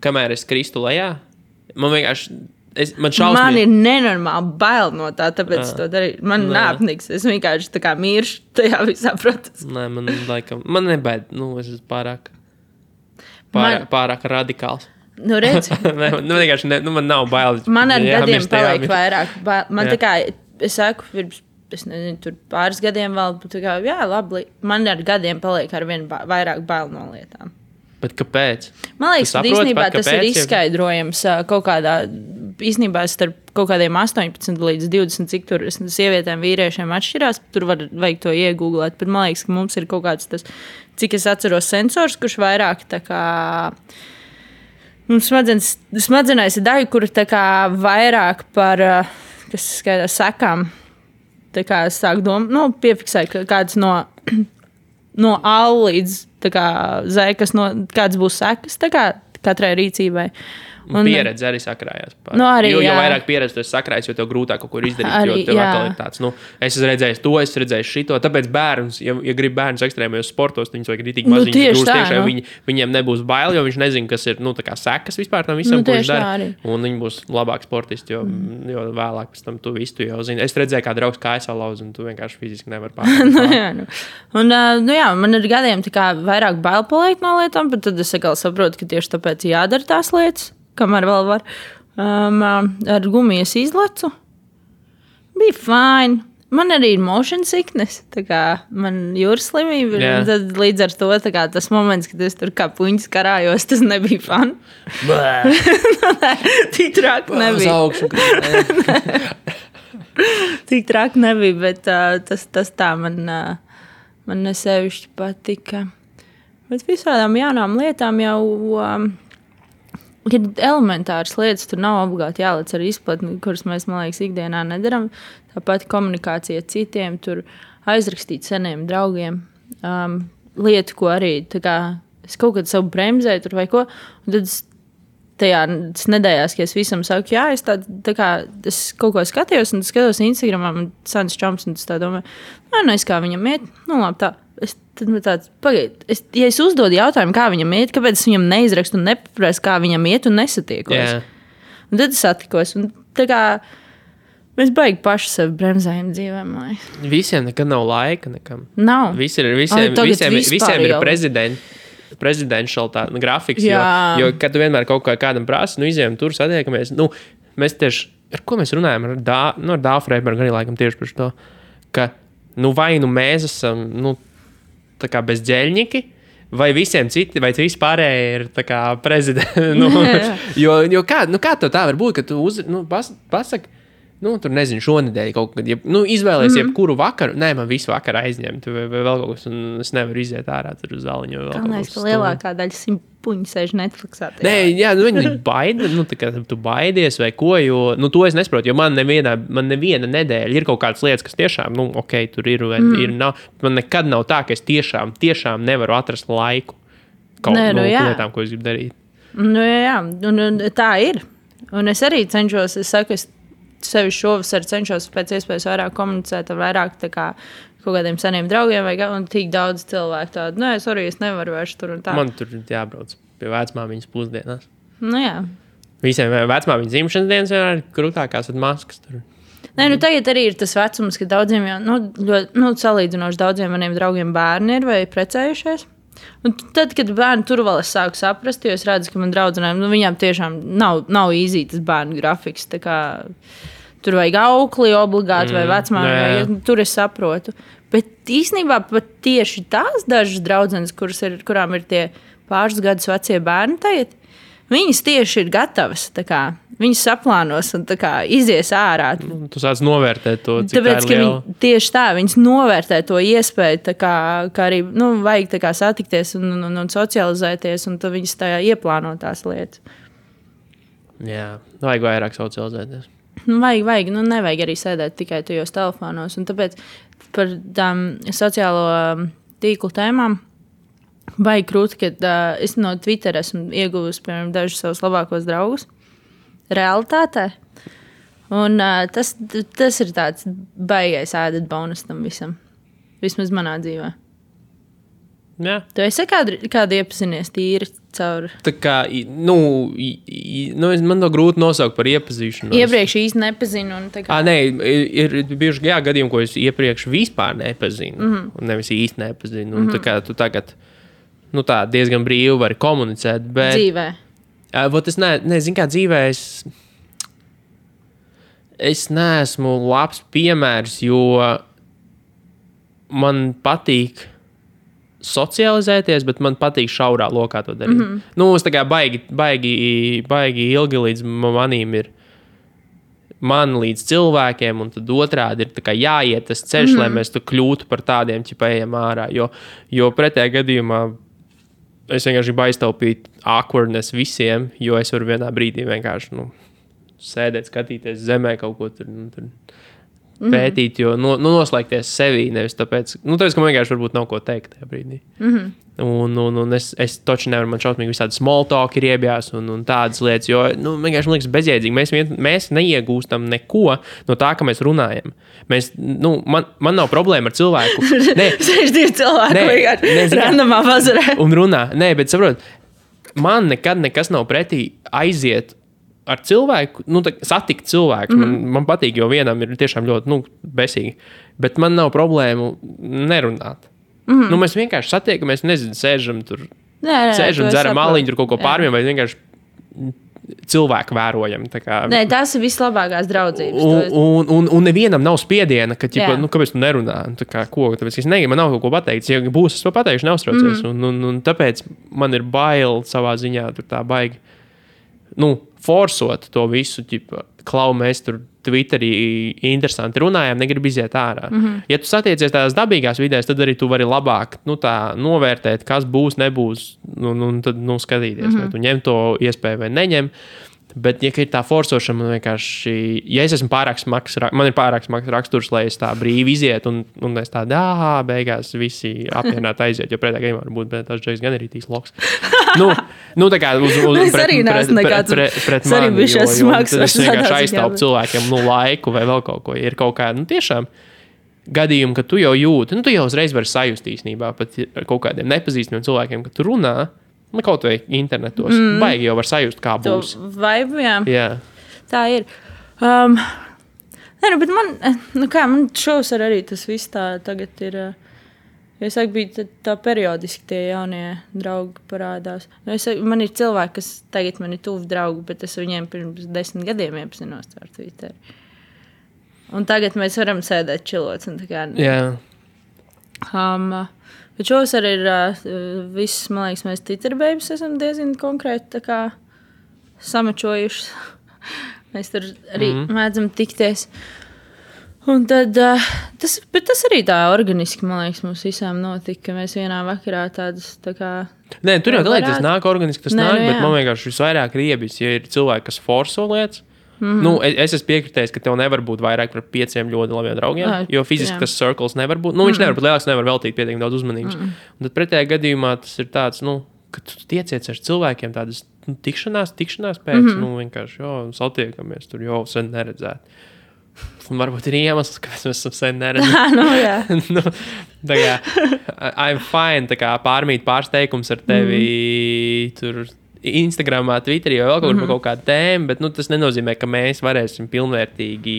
Kamēr es kristu lejā, man vienkārši... Man ir nenormāli bail no tā, tāpēc es to darīju. Man neapniks. Es vienkārši tā kā miršu tajā visā procesā. Nē, man nebaid. Es esmu pārāk radikāls. Redz. Vienkārši man nav bail. Man ar gadiem paliek vairāk bail. Man tā kā, es saku, es nezinu, tur pāris gadiem vēl, tā kā, jā, labi. Man ar gadiem paliek ar vien vairāk bail no lietām. Bet kāpēc? Man liekas, ka īstenībā tas ir izskaidrojams kaut kādā, īstenībā starp kaut kādiem 18 līdz 20, cik tur sievietēm, vīriešiem atšķirās, tur vajag to iegūglēt, bet man liekas, ka mums ir kaut kāds tas, cik es atceros sensors, kurš vairāk tā kā, mums smadzenēs ir daļa, kur tā kā vairāk par, kas skaidrs, sekām, tā kā es sāku piefiksēt kāds no A līdz Z, kāds būs sekas katrai rīcībai. Pieredze arī sakrājās. Jo vairāk pieredze tu esi sakrājis, jo tev grūtāk kaut ko izdarīt. Jo tev atkal ir tāds, es esmu redzējis to, es redzēju šito. Tāpēc bērns, ja grib bērns ekstrēmajos sportos, viņus vajag ritīgi maziņus grūst tiešā. Viņiem nebūs bail, jo viņš nezina, kas ir tā kā sekas vispār tam visam, ko viņš dara. Un viņi būs labāk sportisti, jo vēlāk pēc tam tu visu jau zini. Es redzēju, kā draugs kājas salauz, un tu vienkārši fiziski nevar pārāk. Man ar gadiem tā kā vairāk bail paliek no lietām, bet tad es atkal saprotu, ka tieši tāpēc jādara tās lietas. Kamēr vēl var. Ar gumijas izlecu. Bija fine. Man arī ir motion sickness. Tā kā man jūras slimība. Tad līdz ar to tas moments, kad es tur kā puņas karājos, tas nebija fun. Tik traki nebija. Tik traki nebija, bet tas tā man nesevišķi patika. Bet visādām jaunām lietām jau... Ir elementāras lietas, tur nav obligāti jālec ar izplatni, kuras mēs, man liekas, ikdienā nedaram. Tāpat komunikācija citiem, tur aizrakstīt seniem draugiem. Lietu, ko arī, tā kā, es kaut kad savu bremzēju tur vai ko, un tad tajās nedēļās, ka es visam saku, jā, es tā kā, es kaut ko skatījos, un skatos Instagramā, man sans čoms, un es tā domāju, es kā viņam iet, labi tā. Tad man tāds, ja es uzdodu jautājumu, kā viņam iet, kāpēc es viņam neizrakstu un nepaprasu, kā viņam iet un nesatiekos. Yeah. Un tad es satikos. Un tā kā mēs baigi paši sevi bremzējam dzīvēm. Visiem nekad nav laika nekam. Nav. Visiem ir presidential grafiks. Jo kad tu vienmēr kaut kādam prasi, izējām tur, satiekamies. Mēs tieši, ar ko mēs runājam? Ar Dāvu Freibergu arī laikam tieši par to, ka vai mēs esam... tā kā bezģeļņiki, vai visiem citi, vai visi pārējie ir tā kā prezidenti. Jo kā tev tā var būt, ka tu pasaki, tur nezinu, šonedēļ kaut kad, izvēlēs jebkuru vakaru, nē, man visu vakaru aizņemt, vai vēl kaut kas, un es nevaru iziet ārā tur uz zāliņu. Galvenais, ka lielākā daļa simpuņi sēž Netflixā. Nē, jā, viņi baida, tā kā tu baidies vai ko, jo, to es nesaprotu, jo man neviena nedēļa ir kaut kādas lietas, kas tiešām, ok, tur ir, nav, man nekad nav tā, ka es tiešām nevaru atrast laiku kaut lietām, ko es gribu darīt. Jā, un tā ir. Un es arī cenšos, sevi šovasar cenšos pēc iespējas vairāk komunicēt ar vairāk tā kā kaut kādiem seniem draugiem un tik daudz cilvēku tādu, es nevaru vairs tur un tā. Man tur jābrauc pie vecmāmiņas pusdienās. Jā. Visiem vecmāmiņas dzimšanas dienas ir krūtākās ar maskas tur. Nē, tagad arī ir tas vecums, ka daudziem jau, ļoti, salīdzinoši daudziem maniem draugiem bērni ir vai precējušies. Un tad, kad bērni tur vēl es sāku saprast, jo es redzu, ka man draudzenēm, viņām tiešām nav īzī tas bērnu grafiks, tā kā tur vajag aukli obligāti vai vecmāmi, tur es saprotu. Bet īstenībā pat tieši tās dažas draudzenes, kurām ir tie pāris gadus vecie bērni tagad, viņas tieši ir gatavas, tā kā viņas saplānos un tā kā izies ārā. Tu sāc novērtēt to, cik tāpēc, tā ir liela. Tieši tā, viņas novērtē to iespēju, tā kā arī, vajag tā kā satikties un socializēties, un tad viņas tā ieplāno tās lietas. Jā, vajag vairāk socializēties. Vajag, nevajag arī sēdēt tikai tajos telefonos, un tāpēc par tām sociālo tīklu tēmām vajag krūti, ka es no Twitter esmu ieguvusi, piemēram, dažus savus labākos draugus realitātē. Un tas ir tāds baigais added bonus tam visam. Vismaz manā dzīvē. Jā. Tu esi kādu iepazinies tīri caur? Tā kā, man to grūti nosaukt par iepazīšanu. Iepriekš īsti nepazinu. Un tā kā... Nē, ir bijuši gadījumi, ko es iepriekš vispār nepazinu. Un nevis īsti nepazinu. Un tā kā tu tagad tā diezgan brīvi vari komunicēt. Bet, dzīvē. Es nezinu, kā dzīvē es neesmu labs piemērs, jo man patīk socializēties, bet man patīk šaurā lokā to darīt. Es tā kā baigi ilgi līdz manīm ir man līdz cilvēkiem, un tad otrādi ir tā kā jāiet tas ceļš, lai mēs tu kļūtu par tādiem, ejam ārā. Jo pretējā gadījumā es vienkārši gribu aiztaupīt awkwardness visiem, jo es varu vienā brīdī vienkārši sēdēt, skatīties zemē kaut ko tur pētīt, jo noslēgties sevī, nevis tāpēc, ka man vienkārši varbūt nav ko teikt tajā brīdī. Un es toči nevaru, man šausmīgi visādi small talk ir iebjās un tādas lietas, jo vienkārši man liekas bezjēdzīgi. Mēs neiegūstam neko no tā, ka mēs runājam. Man nav problēma ar cilvēku. Sēž divi cilvēki vienkārši randomā bazarē. Un runā. Nē, bet saprot, man nekad nekas nav pretī aiziet ar cilvēku, satikt cilvēku. Man patīk, jo vienam ir tiešām ļoti besīgi. Bet man nav problēmu nerunāt. Mēs vienkārši satiekamies, sēžam tur, dzeram maliņu, tur kaut ko pārmiem, vai vienkārši cilvēku vērojam. Nē, tās ir vislabākās draudzības. Un nevienam nav spiediena, ka, kāpēc tu nerunā? Tāpēc es negribu, man nav kaut ko pateikt. Ja būs, es to pateikšu, neuztraucies. Un tāpēc man ir bail savā ziņā tur tā baigi. Forsot to visu, klau, mēs tur Twitterī interesanti runājām, negribu iziet ārā. Ja tu satiecies tādās dabīgās vidēs, tad arī tu vari labāk novērtēt, kas būs, nebūs, un tad skatīties, vai tu ņem to iespēju vai neņem. Bet, ja ir tā forsošana, man vienkārši, ja es esmu pārāk smags, man ir pārāk smags raksturs, lai es tā brīvi izietu, un es tā, beigās visi apvienāt aiziet, jo pretējā gadījumā varbūt, bet tas džeks gan ir tīs loks. Tā kā pret mani, jo es vienkārši aiztaupu cilvēkiem, laiku vai vēl kaut ko, ja ir kaut kā, tiešām gadījumi, ka tu jau jūti, tu jau uzreiz vari sajust īstenībā, pat kaut kādiem nepazīstamiem cilvēkiem, ka tu runā, kaut vai internetos. Baigi jau var sajust, kā būs. Vaibu, jā. Tā ir. Bet man šovasar arī tas viss tā tagad ir. Es saku, bija tā periodiski tie jaunie draugi parādās. Man ir cilvēki, kas tagad man ir tuvi draugi, bet es viņiem pirms 10 gadiem iepazinos ar Twitter. Un tagad mēs varam sēdēt čilots un tā kā... Jā. Bet šovasar ir viss, man liekas, mēs Twitter-bēbis esam diezgan konkrēti tā kā samačojuši. Mēs tur arī mēdzam tikties. Un tad, tas arī tā organiski, man liekas, mums visām notika, ka mēs vienā vakarā tādas tā kā... Nē, tur jau tas nāk organiski, tas nāk, bet man vienkārši visvairāk riebis, ja ir cilvēki, kas forso lietas. Es esmu piekritējis, ka tev nevar būt vairāk par 5 ļoti labiem draugiem, jo fiziski tas circles nevar būt. Viņš nevar būt lielāks, nevar veltīt pietiekami daudz uzmanības. Un tad pretējā gadījumā tas ir tāds, ka tu tiecies ar cilvēkiem tādas tikšanās pēc, vienkārši, satiekamies, tur jau sen neredzēt. Un varbūt ir iemesls, kāpēc mēs esam sen neredzējuši. Tā kā I'm fine, tā kā pārsteigums ar tevi tur Instagramā, Twitterī vai vēl kaut kādu tēmu, bet tas nenozīmē, ka mēs varēsim pilnvērtīgi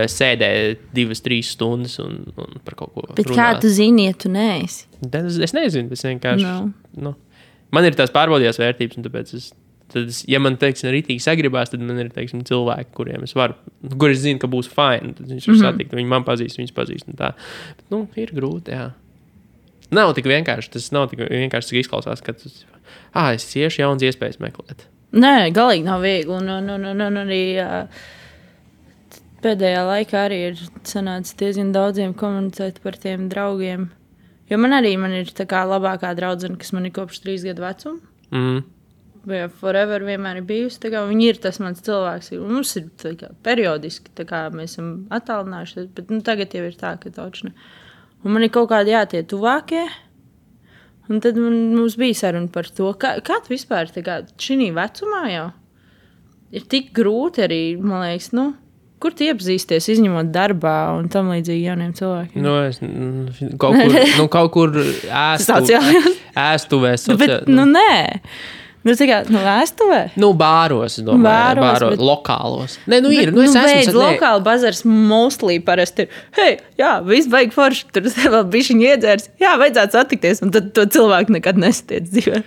sēdēt 2-3 stundas un par kaut ko bet runāt. Kā tu zini, ja tu neesi? Es nezinu, es vienkārši... Man ir tās pārbaudījās vērtības, un tāpēc ja man, teiksim, ritīgi sagribās, tad man ir, teiksim, cilvēki, kuriem es varu, kur es zinu, ka būs fine, tad viņš var satikt, viņi man pazīst, viņas pazīst un tā. Bet, ir grūti, jā. Nav tik vienkārši, tas nav tik vienkārši, cik izklausās, ka es cieši jauns iespējas meklēt. Nē, galīgi nav viegli, un arī pēdējā laikā arī ir sanācis diezgan daudziem komunicēt par tiem draugiem, jo man ir tā kā labākā draudzene, kas man ir kopš 3 gadu vecuma. Vai forever vienmēr ir bijusi. Viņi ir tas mans cilvēks. Mums ir periodiski, mēs esam attālinājušies, bet tagad jau ir tā, ka taučne. Un man ir kaut kādi tie tuvākie. Un tad mums bija saruna par to, kā tu vispār šī vecumā jau ir tik grūti arī, man liekas, kur tu iepazīsties, izņemot darbā un tam līdzīgi jauniem cilvēkiem? Es kaut kur ēstuvē. Bet, nē. Ēstuvē? Bāros, es domāju. Bāros, lokālos. Nē, ir. Es esmu lokāli bazars mostly parasti ir. Viss baigi forši. Tur vēl bišķiņi iedzērs. Vajadzētu satikties. Un tad to cilvēku nekad nesatiec dzīvē.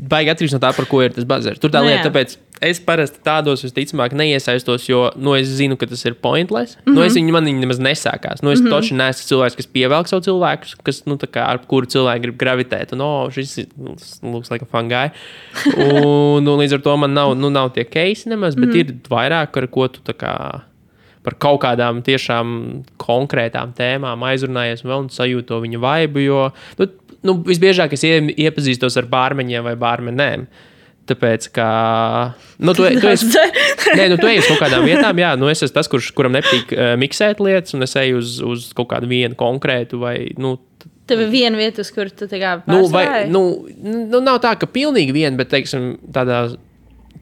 Baigi atkarīgs no tā, par ko ir tas bazars. Tur tā lieta, tāpēc es parasti tādos visticamāk neiesaistos, jo es zinu, ka tas ir pointless. Man viņi nemaz nesākās. Es toči neesmu cilvēks, kas pievelk savu cilvēkus, kas, ar kuru cilvēku grib gravitēt. Un, šis looks like a fun guy. Un līdz ar to man nav tie keisi nemaz, bet ir vairāk, ar ko tu par kaut kādām tiešām konkrētām tēmām aizrunājies un sajūtu to viņa vaibu, jo visbiežāk es iepazīstos ar bārmeņiem vai bārmenēm. Tāpēc, ka tu esi uz kaut kādām vietām, es esmu tas, kuram nepatīk miksēt lietas, un es eju uz kaut kādu vienu konkrētu vai, Tev ir viena vieta, uz kur tu pārstāji? Nav tā, ka pilnīgi viena, bet, teiksim, tādā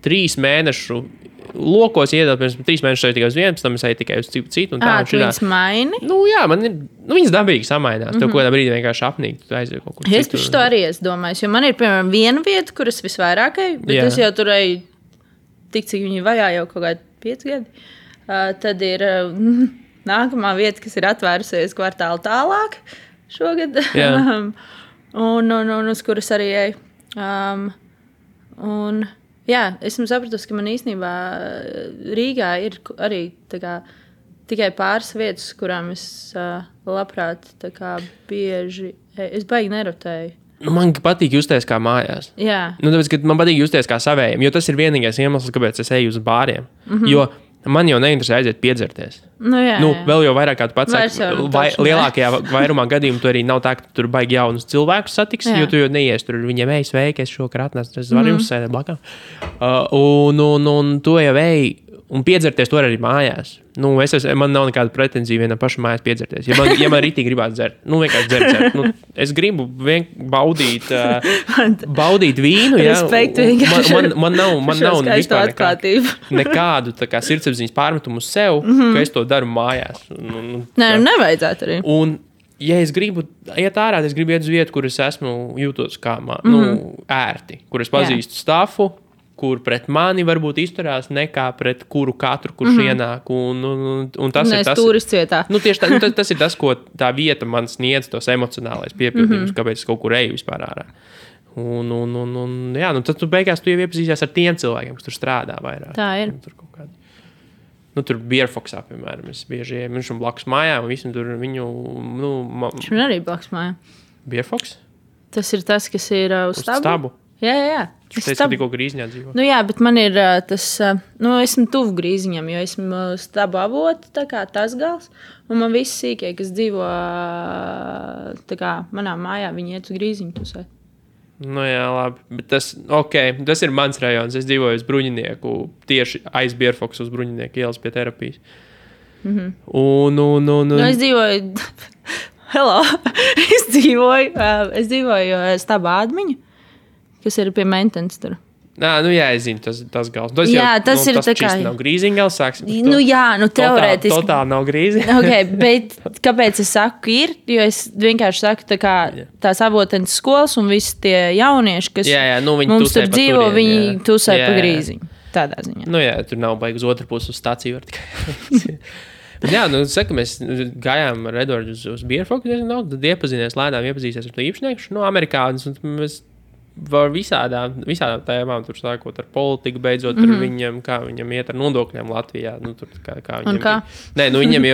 3 mēnešu lokos iedot, pirms 3 mēnešus eju tikai uz vienu, pēc tam es eju tikai uz citu. Tu viņas maini? Man ir, viņas dabīgi samainās. Tev kādā brīdī vienkārši apnīt, tu aizies kaut kur citur. Es par to arī esmu domājis, jo man ir, piemēram, viena vieta, kuras visvairāk eju, bet es jau tur eju tik, cik viņi vajā jau kaut kādi 5 gadi. Tad ir nākamā vieta, kas ir atvērusies kvartālu tālāk šogad. un uz kuras arī eju. Esmu sapratusi, ka man īstenībā Rīgā ir arī tikai pāris vietas, kurām es labprāt bieži, es baigi nerotēju. Man patīk justies kā mājās. Jā. Tāpēc, ka man patīk justies kā savējiem, jo tas ir vienīgais iemesls, kāpēc es eju uz bāriem. Jo man jau neinteresē aiziet piedzerties. Vēl jau vairāk kā tu pats saki, lielākajā vairumā gadījumu tu arī nav tā, ka tur baigi jaunus cilvēkus satiks, jo tu jau neies tur viņiem sveiki, es šokar atnācu, es varu jums sēdēt blakām. Un tu jau un piedzerties to arī mājās. Man nav nekāda pretenzija vienam pašam mājās piedzerties. Ja man ritīgi gribētu dzert, vienkārši dzert. Es gribu baudīt vīnu. Respektu vienkārši. Man nav nekādu sirdsapziņas pārmetumu uz sev, ka es to daru mājās. Nevajadzētu arī. Un, ja es gribu iet ārā, es gribu iet uz vietu, kur es esmu jūtos kā ērti, kur es pazīstu stafu, kur pret mani varbūt izturās nekā pret katru, kurš ienāk. Un tas ir tas, turists vietā. Tieši tā, tas ir tas, ko tā vieta man sniedz, tos emocionālais piepildījums, kāpēc es kaut kur eju vispār ārā. Tad tu beigās tu jau iepazīsies ar tiem cilvēkiem, kas tur strādā vairāk. Tā ir. tur Bierfoksā, piemēram, es bieži ejam, viņš blakus mājā, un visam tur viņu, Viņš man arī blakus mājā. Bierfoks? Tas ir tas, kas ir uz stabu? Jā. Viņš teica, ka tikko Grīziņā dzīvo. Nu jā, bet man ir tas, esmu tuvu Grīziņam, jo esmu stabu avotu, tā kā tas gals, un man visi sīkie, kas dzīvo tā kā manā mājā, viņi iet uz Grīziņu tusēt. Nu jā, labi, bet tas ir mans rajons, es dzīvoju uz Bruņinieku, tieši aiz Bierfoksu uz Bruņinieku ielas pie terapijas. Un... es dzīvoju, es dzīvoju stabu ādmiņu, kas ir pie Mentens tur. Jā, es zinu, tas gals. Tas ir tas tā kā... nav Grīziņa gals, sāksim. Teorētiski. Totāli nav Grīziņa. Bet kāpēc es saku ir? Jo es vienkārši saku tās avotenes skolas un visi tie jaunieši, kas mums tur dzīvo, viņi tusē pa Grīziņu. Tādā ziņā. Tur nav baigi uz otru pusi uz stāciju var tikai. Jā, mēs gājām ar Edvardu uz Bierfoku, tad iepazīsies ar to īpašnieku, amerikānis, un mēs var visādām tēmām, tur sākot ar politiku, beidzot ar viņam, kā viņam iet ar nodokļiem Latvijā.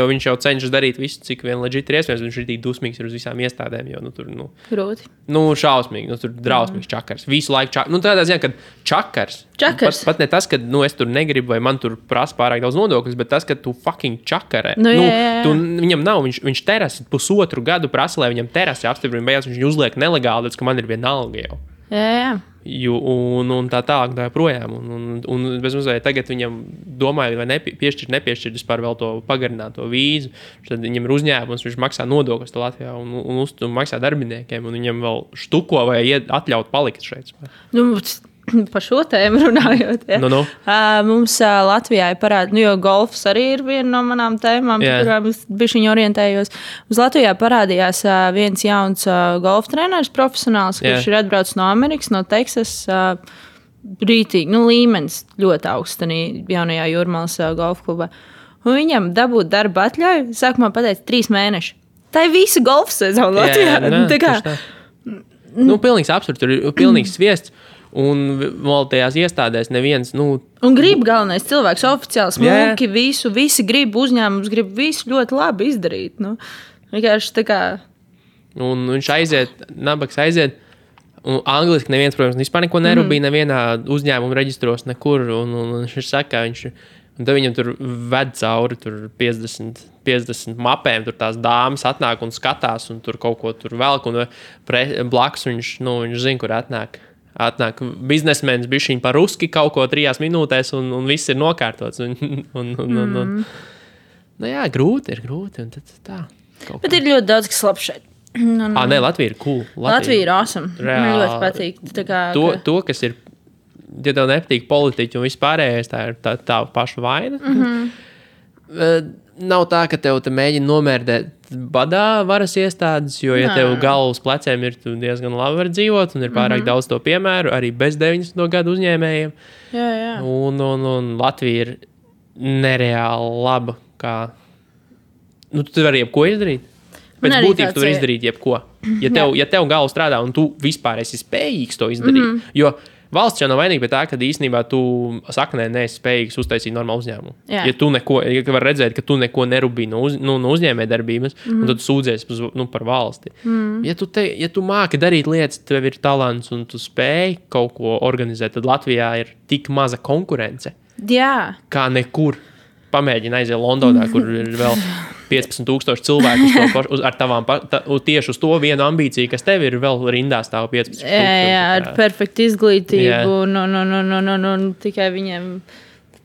Viņš jau cenšas darīt visu, cik vien legit ir iespējams, viņš ir tik dusmīgs uz visām iestādēm, jo Grūti. Šausmīgi, tur drausmīgs čakars. Visu laiku čakars. Tādā ziņā, ka čakars. Pat ne tas, ka es tur negribu vai man tur prasa pārāk daudz nodokļus, bet tas, ka tu fucking čakarē. Viņam nav, viņš terasi 1,5 gadu prasa, lai viņam terasi apstiprina, beigās viņš uzliek nelegāli, ka man ir vienalga jau. Jā. Un tā tālāk tā projām. Un bez mazliet tagad viņam domāju, vai nepiešķirt vispār vēl to pagarināto vīzu. Tad viņam ir uzņēmums, viņš maksā nodokļus Latvijā un maksā darbiniekiem, un viņam vēl štuko vai atļaut palikt šeit. Par šo tēmu runājot. Ja. Mums Latvijā ir parādīts, jo golfs arī ir viena no manām tēmām, kurām es bišķiņ orientējos. Mums Latvijā parādījās viens jauns golfa treneris, profesionāls, kurš ir atbraucis no Amerikas, no Teksas. Brītīgi, līmenis ļoti augsts jaunajā Jūrmalas golfa klubā. Un viņam dabūt darba atļauju, sākumā pateica 3 mēneši. Tā ir visa golfa sezona Latvijā. Pilnīgs absurds, tur ir pilnīgs sviests. Un vēl tajās iestādēs neviens, Un grib galvenais cilvēks oficiāli smuki, visi grib, uzņēmums grib visu ļoti labi izdarīt. Vienkārši tā kā... Un viņš nabaks aiziet, un angliski neviens, protams, vispār neko nerūpīja, nevienā uzņēmuma reģistros nekur, un viņš saka, un tad viņam tur ved cauri 50 mapēm, tur tās dāmas atnāk un skatās, un tur kaut ko tur velk, un blakus viņš zina, kur atnāk biznesmenis bišķiņ par ruski kaut ko 3 minūtēs, un viss ir nokārtots. Grūti ir. Un tad tā. Bet ir ļoti daudz, kas labs šeit. Latvija ir cool. Latvija ir awesome. Man ļoti patīk. To, kas ir, ja tev nepatīk politiķi un vispārējais, tā ir tā paša vaina. Nav tā, ka tev te mēģina nomērdēt badā varas iestādes, jo, ja tev galvas pleciem ir, tu diezgan labi var dzīvot, un ir pārāk daudz to piemēru, arī bez 90. gadu uzņēmējiem. Jā. Un Latvija ir nereāli laba, kā... tu vari jebko izdarīt. Pēc būtības tu vari izdarīt jebko. Ja tev galva strādā, un tu vispār esi spējīgs to izdarīt, jo... Valsts jau nav vainīga pie tā, ka īstenībā tu saknē neesi spējīgs uztaisīt normālu uzņēmumu. Ja var redzēt, ka tu neko nerūpī no uzņēmējdarbības, un tad tu sūdzies par valsti. Ja tu māki darīt lietas, tev ir talants un tu spēj kaut ko organizēt, tad Latvijā ir tik maza konkurence. Jā. Kā nekur. Pamēģini aiziet Londonā, kur ir vēl 15,000 cilvēku ar tavām, tieši uz to vienu ambīciju, kas tev ir vēl rindā stāv 15,000. Jā, ar perfektu izglītību. Un tikai viņiem,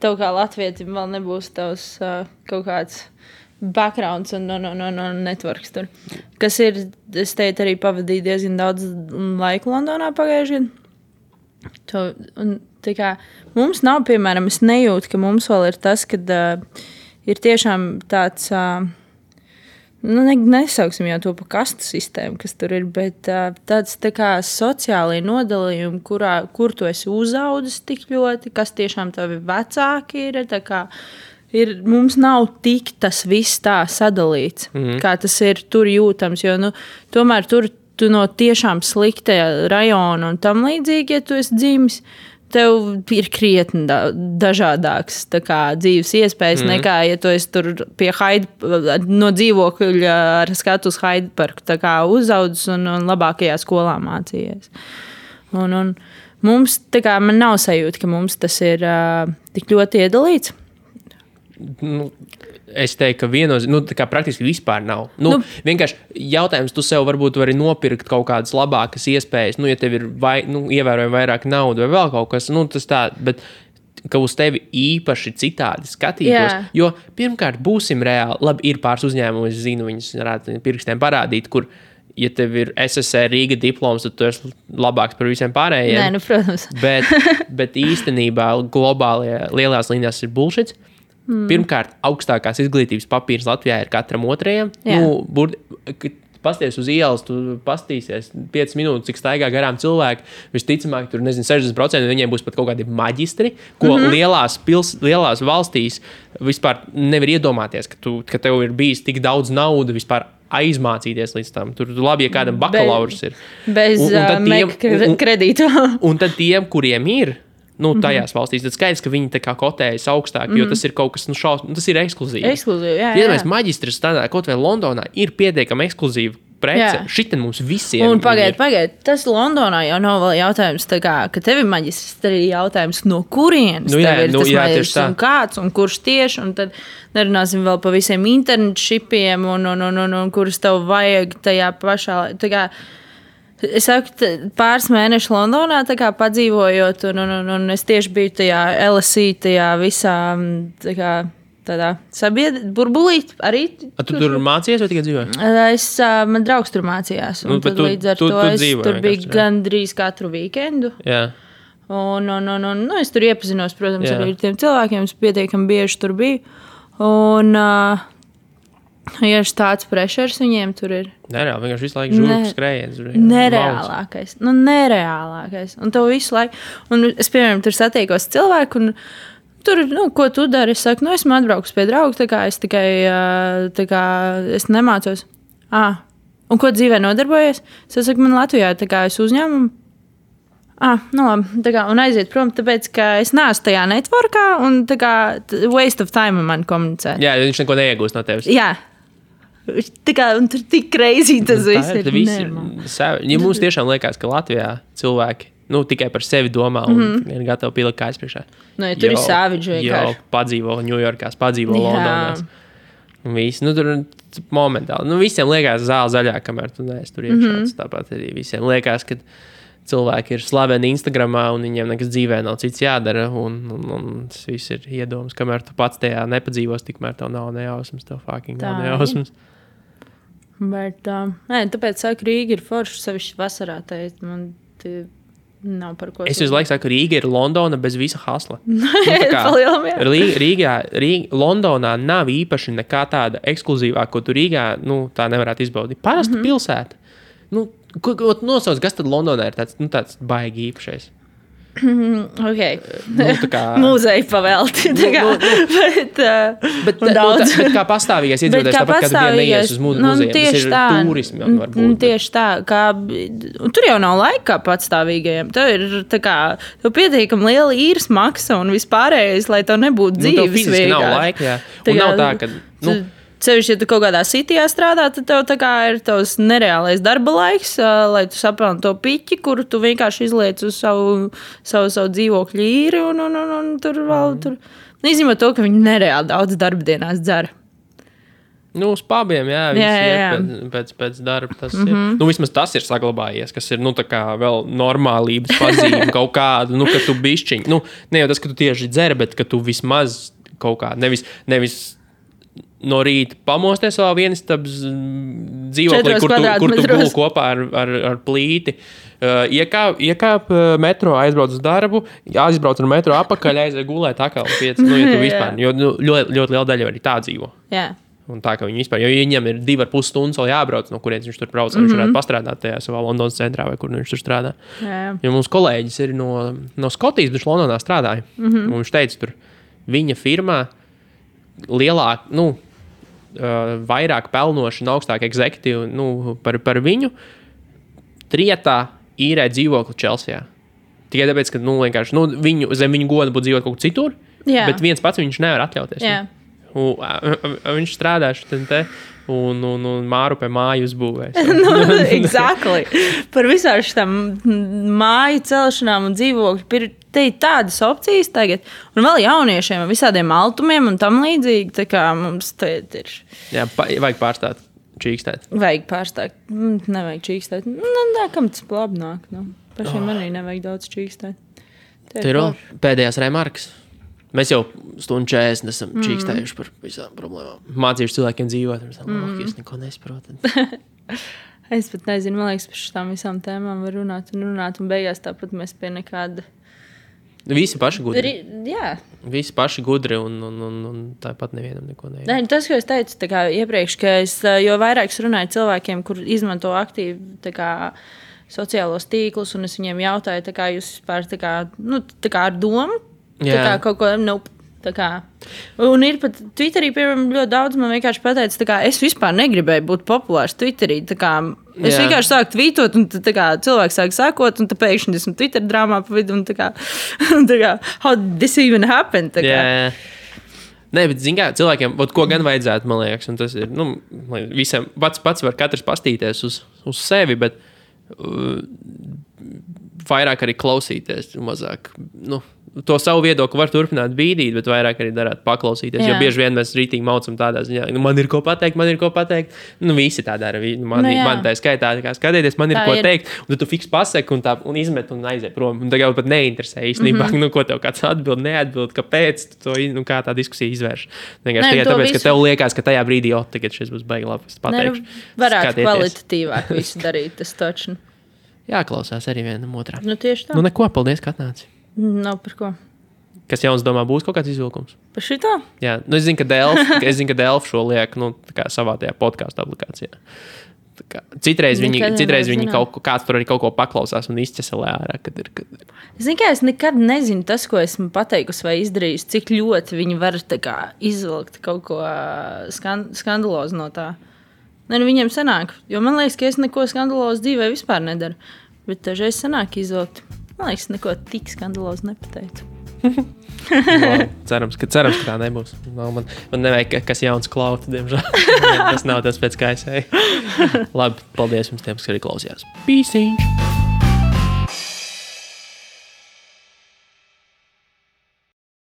tev kā latvietim, vēl nebūs tavs kaut kāds backgrounds un networks tur. Kas ir, es teicu, arī pavadīju diezgan daudz laiku Londonā pagājušajā. Mums nav, piemēram, es nejūtu, ka mums vēl ir tas, kad ir tiešām tāds, nesauksim jau to pa kastu sistēmu, kas tur ir, bet tāds tā kā sociālai nodalījumi, kur tu esi uzaudzis tik ļoti, kas tiešām tavi vecāki ir, tā kā mums nav tik tas viss tā sadalīts, kā tas ir tur jūtams, jo, tomēr tur tu no tiešām slikta rajona un tam līdzīgi, ja tu esi dzimis, tev ir krietni dažādāks dzīves iespējas nekā, ja tu esi tur pie no dzīvokļa ar skatu uz Hyde Parku uzaudzis un labākajā skolā mācījies. Un mums, man nav sajūta, ka mums tas ir tik ļoti iedalīts. Es teiktu, ka praktiski vispār nav. Vienkārši jautājums, tu sev varbūt vari nopirkt kaut kādas labākas iespējas, ja tev ir ievērojami vairāk naudu vai vēl kaut kas, tas tā, bet ka uz tevi īpaši citādi skatītos. Jā. Jo pirmkārt, būsim reāli, labi, ir pāris uzņēmumi, es zinu, viņus varētu pirkstiem parādīt, kur, ja tev ir SSR Rīga diploms, tad tu esi labāks par visiem pārējiem. Nē, protams. bet īstenībā globālajā lielās līnijās ir bullshits. Pirmkārt, augstākās izglītības papīrs Latvijā ir katram otrajam. Pasties uz ielas, tu pastīsies 5 minūtes, cik staigā garām cilvēki. Visticamāk, tur 60% viņiem būs pat kaut kādi maģistri, ko lielās valstīs vispār nevar iedomāties, ka tev ir bijis tik daudz naudu vispār aizmācīties līdz tam. Tur labi, ja kādam bakalaurs ir. Bez kredītu. Un tad tiem, kuriem ir, tajās valstīs, tad skaidrs, ka viņi tā kā kotējas augstāk, jo tas ir kaut kas, tas ir ekskluzīvi. Jā. Mēs maģistris tādā, kaut vai Londonā, ir pietiekami ekskluzīva prece. Šitin mums visiem. Un pagaid, tas Londonā jau nav vēl jautājums, ka tev ir maģistris, tad ir jautājums, no kurienes tev ir tas maģistris un kāds, un kurš tieši, un tad nerunāsim vēl pa visiem internetšipiem, un kurus tev vajag tajā pašā, Es saku, pāris mēnešus Londonā padzīvojot, un es tieši biju tajā LSE, tajā visā tādā burbulī arī. Tu tur mācījies vai tikai dzīvoji? Man draugs tur mācījās, un tad līdz ar to es tur biju gandrīz katru weekendu. Jā. Un es tur iepazinos, protams, arī ar tiem cilvēkiem, es pietiekami bieži tur biju. Un ja tāds pressures viņiem tur ir. Nereāli, vienkārši visu laiku žurku skrējiens. Nereālākais. Un tev visu laiku. Un es, piemēram, tur satiekos cilvēku, un tur, ko tu dari? Es saku, esmu atbraukus pie draugu, es tikai, es nemācos. Un ko dzīvē nodarbojies? Es saku, man Latvijā, es uzņēmumu. Labi, un aiziet prom, tāpēc, ka es neesmu tajā networkā, un waste of time man komunicēt. Jā, viņš neko neiegūst no tevis. Jā. Un tur tik crazy tas viss ir. Ja mums tiešām liekas, ka Latvijā cilvēki tikai par sevi domā un ir gatavi pielikt kājas priekšā. Tur ir savage vienkārši. Jo padzīvo Ņujorkās, padzīvo Londonās. Un visi, tur momentāli. Visiem liekas zāle zaļā, kamēr tu neesi tur iekšā. Tāpat arī visiem liekas, ka cilvēki ir slaveni Instagramā un viņiem nekas dzīvē nav cits jādara. Un tas viss ir iedoms, kamēr tu pats tajā nepadzīvos, tikmēr tev nav nejausmas, tev fucking nav nejausmas. Bet, tāpēc saku, Rīga ir forša, sevišķi vasarā. Man nav par ko. Es visu laiku saku, Rīga ir Londona bez visa hasla. Londonā nav īpaši nekā tāda ekskluzīvā, ko tu Rīgā tā nevarētu izbaudīt. Parasta pilsēta. Nosauc, kas tad Londonā ir tāds baigi īpašais? Okay. Mūzeja pavelti. Bet kā pastāvīgais iedzīvotājs, tāpat kā tu vien neies uz muzeju, tas ir turismi varbūt. Tieši tā, tur jau nav laika kā patstāvīgajiem. Tev ir tev pietiekami liela īres maksa un vispārējais, lai tev nebūtu dzīves. Tev fiziski nav laika, jā. Un nav tā, ka... Sevišķi, ja tu kaut kādā sitijā strādā, tad tev ir tavs nereālais darba laiks, lai tu sapelni to piķi, kuru tu vienkārši izliec uz savu dzīvokļu īri un tur vēl tur. Izņemot to, ka viņi nereāli daudz darba dienās dzer. Uz pubiem, jā, pēc darba tas ir. Vismaz tas ir saglabājies, kas ir, vēl normālības pazīme kaut kādu, ka tu bišķiņ. Ne jau tas, ka tu tieši dzer, bet ka tu vismaz kaut kā, nevis no rīta pamosties savā vienistabas dzīvoklī, kur tu guli kopā ar plīti. Iekāp metro, aizbrauc uz darbu, aizbrauc ar metro apakaļ, aiziet gulēt atkal 5. Ja tu vispār, jo ļoti liela daļa arī tā dzīvo. Jā. Un tā, ka viņi vispār, jo viņam ir 2,5 stundas vēl jābrauc, no kurienes viņš tur brauc, viņš varētu pastrādāt tajā savā Londonas centrā, vai kur viņš tur strādā. Jā. Jo mums kolēģis ir no Skotijas, viņš Londonā strādāja. Un viņš teica, tur viņa firmā lielāk, vairāk pelnoši un augstāk egzekutīvi par viņu trietā īrē dzīvokli Čelsijā. tikai tāpēc, ka vienkārši viņu, zem viņu goda būtu dzīvot kaut kur citur, bet viens pats viņš nevar atļauties. Viņš strādā šitien un māru pie māju uzbūvēs. Exactly. Par visām šitām māju celšanām un dzīvokļu. Te ir tādas opcijas tagad. Un vēl jauniešiem, visādiem altumiem un tam līdzīgi. Tā kā mums te ir. Jā, vajag pārstāt čīkstēt. Vajag pārstāt. Nevajag čīkstēt. Nē, kam tas labi nāk. Pašiem arī nevajag daudz čīkstēt. Te ir pēdējās remarkas. Mēs jau 1:40 esam čīkstējuši par visām problēmām. Mācījuši cilvēkiem dzīvot. Es neko nesaprotu. Es pat nezinu, man liekas, par šitām visām tēmām var runāt. Un beigās tāpat mēs pie nekāda... Visi paši gudri. Jā. Visi paši gudri un tāpat nevienam neko nevienam. Nē, tas, ko es teicu tā kā iepriekš, ka jo vairāk es runāju cilvēkiem, kur izmanto aktīvi tā kā sociālos tīklus, un es viņiem jautāju, tā kā jūs vispār tā kā ar domu, tā kā kaut ko, tā kā. Un ir pat Twitterī, piemēram, ļoti daudz man vienkārši pateica, tā kā es vispār negribēju būt populārs Twitterī, tā kā es vienkārši sāku tvītot, un tā kā cilvēks sāk sākot, un tā pēkšņi esmu Twitter drāmā pa vidu, un tā kā, how did this even happen, tā kā. Nē, bet zin kā, cilvēkiem, ko gan vajadzētu, man liekas, un tas ir, visiem pats var katrs pastīties uz sevi, bet vairāk arī klausīties, mazāk, to savu viedokli var turpināt bīdīt, bet vairāk arī darāt paklausīties. Jo bieži vien mēs rītīgi maucam tādā ziņā, man ir ko pateikt. Visi tā dara. Man tā skaitā, skatieties, man ir ko teikt. Un tad tu fiks pasaki un izmet un aiziet prom. Un tagad pat neinteresē īstenībā, ko tev kāds atbild, neatbild, kāpēc, kā tā diskusija izvērš. Tikai tāpēc, ka tev liekas, ka tajā brīdī, tagad šis būs baigi labi, es pateikšu. Varētu kvalitatīvāk visu darīt, tas taču. Jāklausās arī vienam otrā. Tieši tā. Neko, paldies, ka atnāci. Nav par ko. Kas jauns domā, būs kaut kāds izvilkums? Par šito? Jā, es zinu, ka Delf šo liek savā tajā podcastu aplikācijā. Citreiz viņi kāds tur arī kaut ko paklausās un izķeselē ārā, kad ir. Zinu, ka es nekad nezinu tas, ko esmu pateikusi vai izdarījusi, cik ļoti viņi var izvilkt kaut ko skandalozu no tā. Viņiem sanāk, jo man liekas, ka es neko skandalozu dzīvē vispār nedaru, bet dažreiz sanāk izvilkt. Man liekas, neko tik skandalozu nepateicu. Cerams, ka tā nebūs. Man nevajag, kas jauns klauta, diemžēl. Tas nav tas pēc kā es eju. Labi, paldies jums tiem, kas arī klausījās. Pīsiņš!